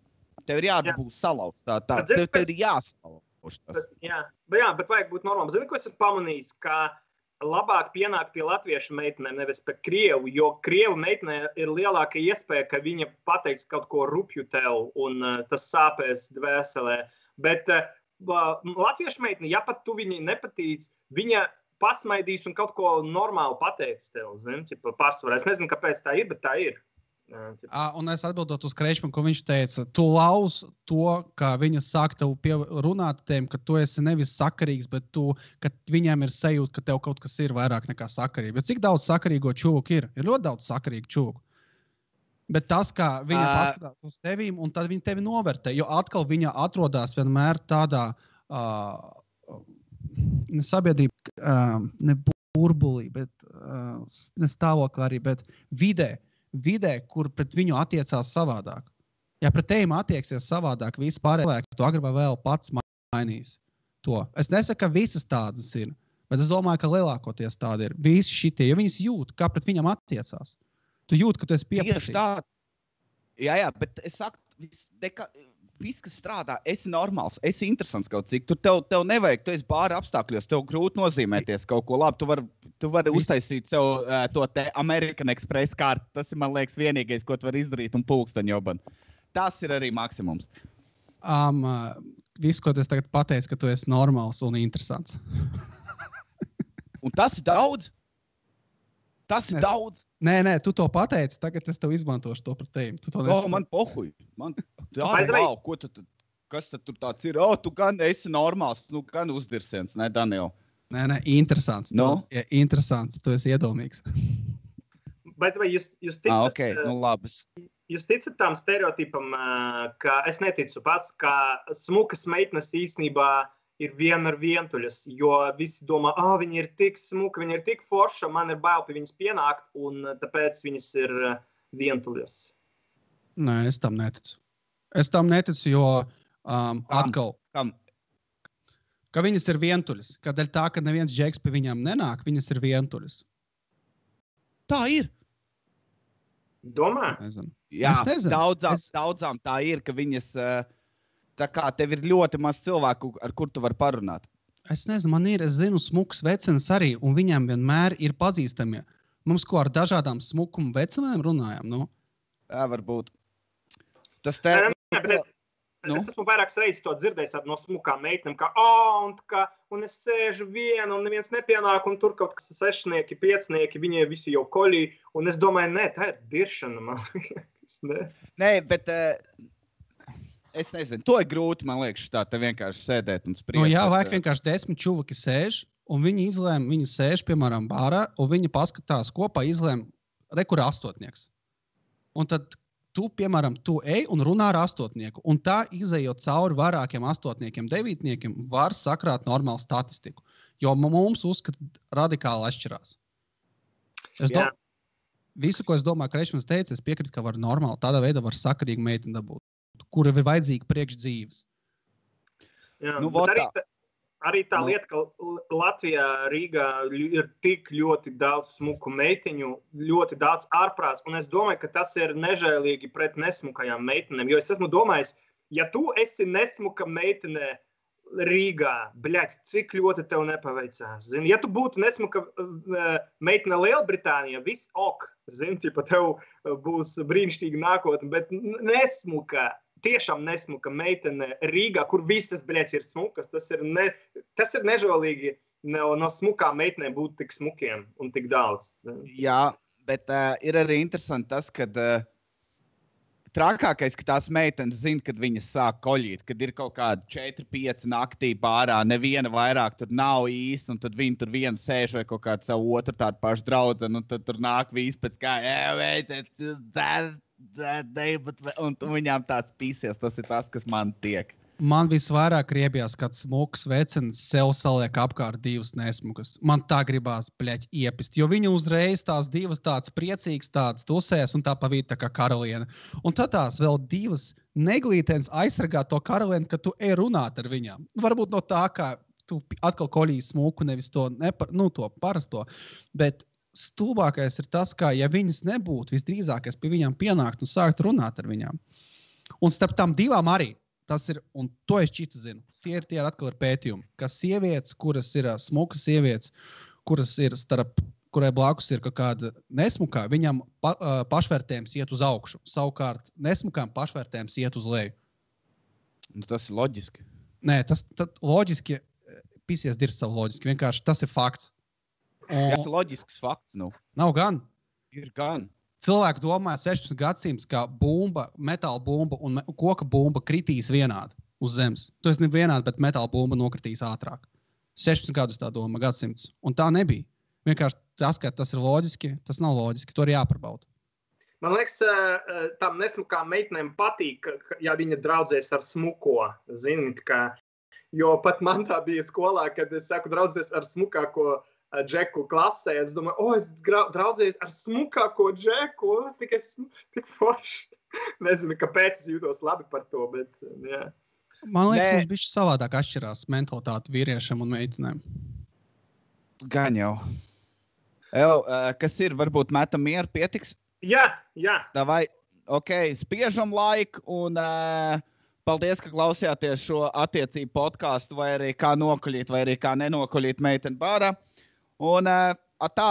Tev ir jābūt salauzt. Tev ir jāsalauž tas. Jā, bet vajag būt normāli. Zini, ko es esmu pamanījis, ka labāk pienākt pie latviešu meitenēm, nevis pie krievu, jo krievu meitenē ir lielāka iespēja, ka viņa pateiks kaut ko rupju tev, un tas sāpēs dvēselē. Bet latviešu meitene, ja pat tu viņai nepatīc, viņa pasmaidīs un kaut ko normāli pateiks tev, pārsvarā. Es nezinu, kāpēc tā ir, bet tā ir. Un es atbildot uz Kreičmanu, ko viņš teica, tu lauz to, ka viņa sāk tev runāt tiem, ka tu esi nevis sakarīgs, bet ka viņiem ir sajūta, ka tev kaut kas ir vairāk nekā sakarība. Bet cik daudz sakarīgo čūku ir? Ir ļoti daudz sakarīgu čūku. Bet tas, kā viņa paskatās uz tevīm, un tad viņa tevi novērtē, jo atkal viņa atrodas vienmēr tādā ne sabiedrība, ne burbulī, bet ne stāvoklī arī, bet vidē, kur pret viņu attiecās savādāk. Ja pret tevīm attieksies savādāk, visi pārējie cilvēki, tu agri vai vēl pats mainīs to. Es nesaku, ka visas tādas ir, bet es domāju, ka lielākoties tādi ir. Visi šitie, jo viņas jūt, kā pret viņam attiecās. Tu jūt, ka tu esi pieprasījis. Jā, bet es saku, viss, kas strādā, esi normāls, esi interesants kaut cik. Tev nevajag, tu esi bāra apstākļos, tev grūti nozīmēties kaut ko labi. Tu vari uztaisīt sev to te American Express kartu. Tas ir, man liekas, vienīgais, ko tu vari izdarīt un pulksteņoban. Tas ir arī maksimums. Viss, ko es tagad pateicu, ka tu esi normāls un interesants. Un tas ir daudz? Tas ir daudz? Nē, tu to pateici, tagad es tev izmantošu to par tevi. Man pohuj. Kas tad tur tāds ir? Tu gan esi normāls, gan uzdirsiens, ne, Daniel? Nē, interesants. No? Ja, interesants, tu esi iedomīgs. Bet vai jūs ticat, okay. Labi. Jūs ticat tam stereotipam, ka es neticu pats, ka smukas meitenes īstenībā ir vienmēr vientuļas, jo visi domā, viņa ir tik smuka, viņa ir tik forša, man ir bail pie viņas pienākt, un tāpēc viņas ir vientuļas. Nē, es tam neticu. Jo atkal, ka viņas ir vientuļas. Kādēļ tā, ka neviens džeks pie viņām nenāk, viņas ir vientuļas. Tā ir. Domā? Nezinu. Jā, daudzām tā ir, ka viņas... Tā kā tev ir ļoti maz cilvēku, ar kur tu vari parunāt. Es nezinu, es zinu smukas vecenes arī, un viņām vienmēr ir pazīstamie. Mums ko ar dažādām smukuma vecenēm runājam, nu? Jā, varbūt. Tas Es esmu vairākas reizes to dzirdējis no smukām meitenēm, un es sēžu viena, un neviens nepienāk, un tur kaut kas sešnieki, piecnieki, viņi visi jau koļī, un es domāju, tā ir diršana, man liekas, Nē, bet... Es nezinu, to ir grūti, man liekas, te vienkārši sēdēt un spriest. Jā, vajag vienkārši 10 čuvaki sēž, un viņi izlēma, viņi sēž, piemēram, bārā, un viņi paskatās kopā, izlēma, kur astotnieks. Un tad tu, piemēram, tu ej un runā ar astotnieku, un tā izejot cauri vairākiem astotniekiem, devītniekiem, var sakrāt normālu statistiku, jo mums uzskat radikāli atšķirās. Visu, ko es domāju, ka Reišmans teica, es piekrītu, ka var normāli, tādā veidā var sakarīgi meiteni dabūt. Kura ir vajadzīga priekš dzīves. Jā, arī tā lieta, ka Latvijā, Rīgā ir tik ļoti daudz smuku meiteņu, ļoti daudz ārprāts, un es domāju, ka tas ir nežēlīgi pret nesmukajām meitenēm, jo es esmu domājis, ja tu esi nesmuka meitene Rīgā, cik ļoti tev nepaveicās. Zini, ja tu būtu nesmuka meitene Lielbritānijā, viss ok, Zini, ja tev būs brīnišķīga nākotne, bet nesmuka, tiešām nesmuka meitene Rīgā, kur visas, bļēc, ir smukas. Tas ir nežēlīgi no smukām meitenēm būt tik smukiem un tik daudz. Jā, bet ir arī interesanti tas, ka trakākais, ka tās meitenes zina, kad viņas sāk koļīt, kad ir kaut kādi 4-5 naktī pārā, neviena vairāk tur nav īsti, un tad viņi tur vienu sēž vai kaut kādu savu otru tādu pašu draudzenu, un tad tur nāk visi pēc kā, un viņām tāds pīsies, tas ir tas, kas man tiek. Man visvairāk riebjās, kad smuks vecenis sev saliek apkārt divas nesmukas. Man tā gribās, bļeķ, iepist, jo viņa uzreiz tās divas tāds priecīgs, tāds tusēs un tā pa vidu tā kā karaliene. Un tad tās vēl divas neglītens aizsargā to karalieni, ka tu ej runāt ar viņām. Varbūt no tā, kā tu atkal koļīji smuku, nevis to, to parasto, bet stulbākais ir tas, ka ja viņas nebūtu, visdrīzākais pie viņām pienākt un sākt runāt ar viņām. Un starp tām divām arī. Tas ir, un to es čita zinu, tie ir atkal ir pētījumi, ka sievietes, kuras ir smukas sievietes, kuras ir kurai blakus ir kaut kāda nesmukā, viņam pašvērtējums iet uz augšu. Savukārt nesmukām pašvērtējums iet uz leju. Nu, tas ir loģiski. Nē, tas loģiski, pisies dirs savu loģiski, vienkārši tas ir fakts. Tas ir loģisks fakts, nu. Nav gan. Ir gan. Cilvēki domāja 16 gadsimts, ka bumba, metāla bumba un koka bumba kritīs vienādi uz zemes. Tu esi ne vienādi, bet metāla bumba nokritīs ātrāk. 16 gadus tā doma gadsimts. Un tā nebija. Vienkārši tas, ka tas ir loģiski, tas nav loģiski. To ir jāparbauda. Man liekas, tam nesmukām meitenēm patīk, ja viņa draudzēs ar smuko. Zini, jo pat man tā bija skolā, kad es saku draudzēs ar smukāko Džeku klasē. Es domāju, es draudzējos ar smukāko Džeku. Tik forši. Nezinu, kāpēc es jūtos labi par to, bet jā. Man liekas, mums bišķi savādāk atšķirās mentalitāte vīriešiem un meitenēm. Gan jau. Kas ir, varbūt metam mieru, pietiks? Jā. Davai, spiežam laiku un paldies, ka klausījāties šo attiecību podcastu, vai arī kā nokuļīt, vai arī kā nenokuļīt meiteni bārā. Un tā.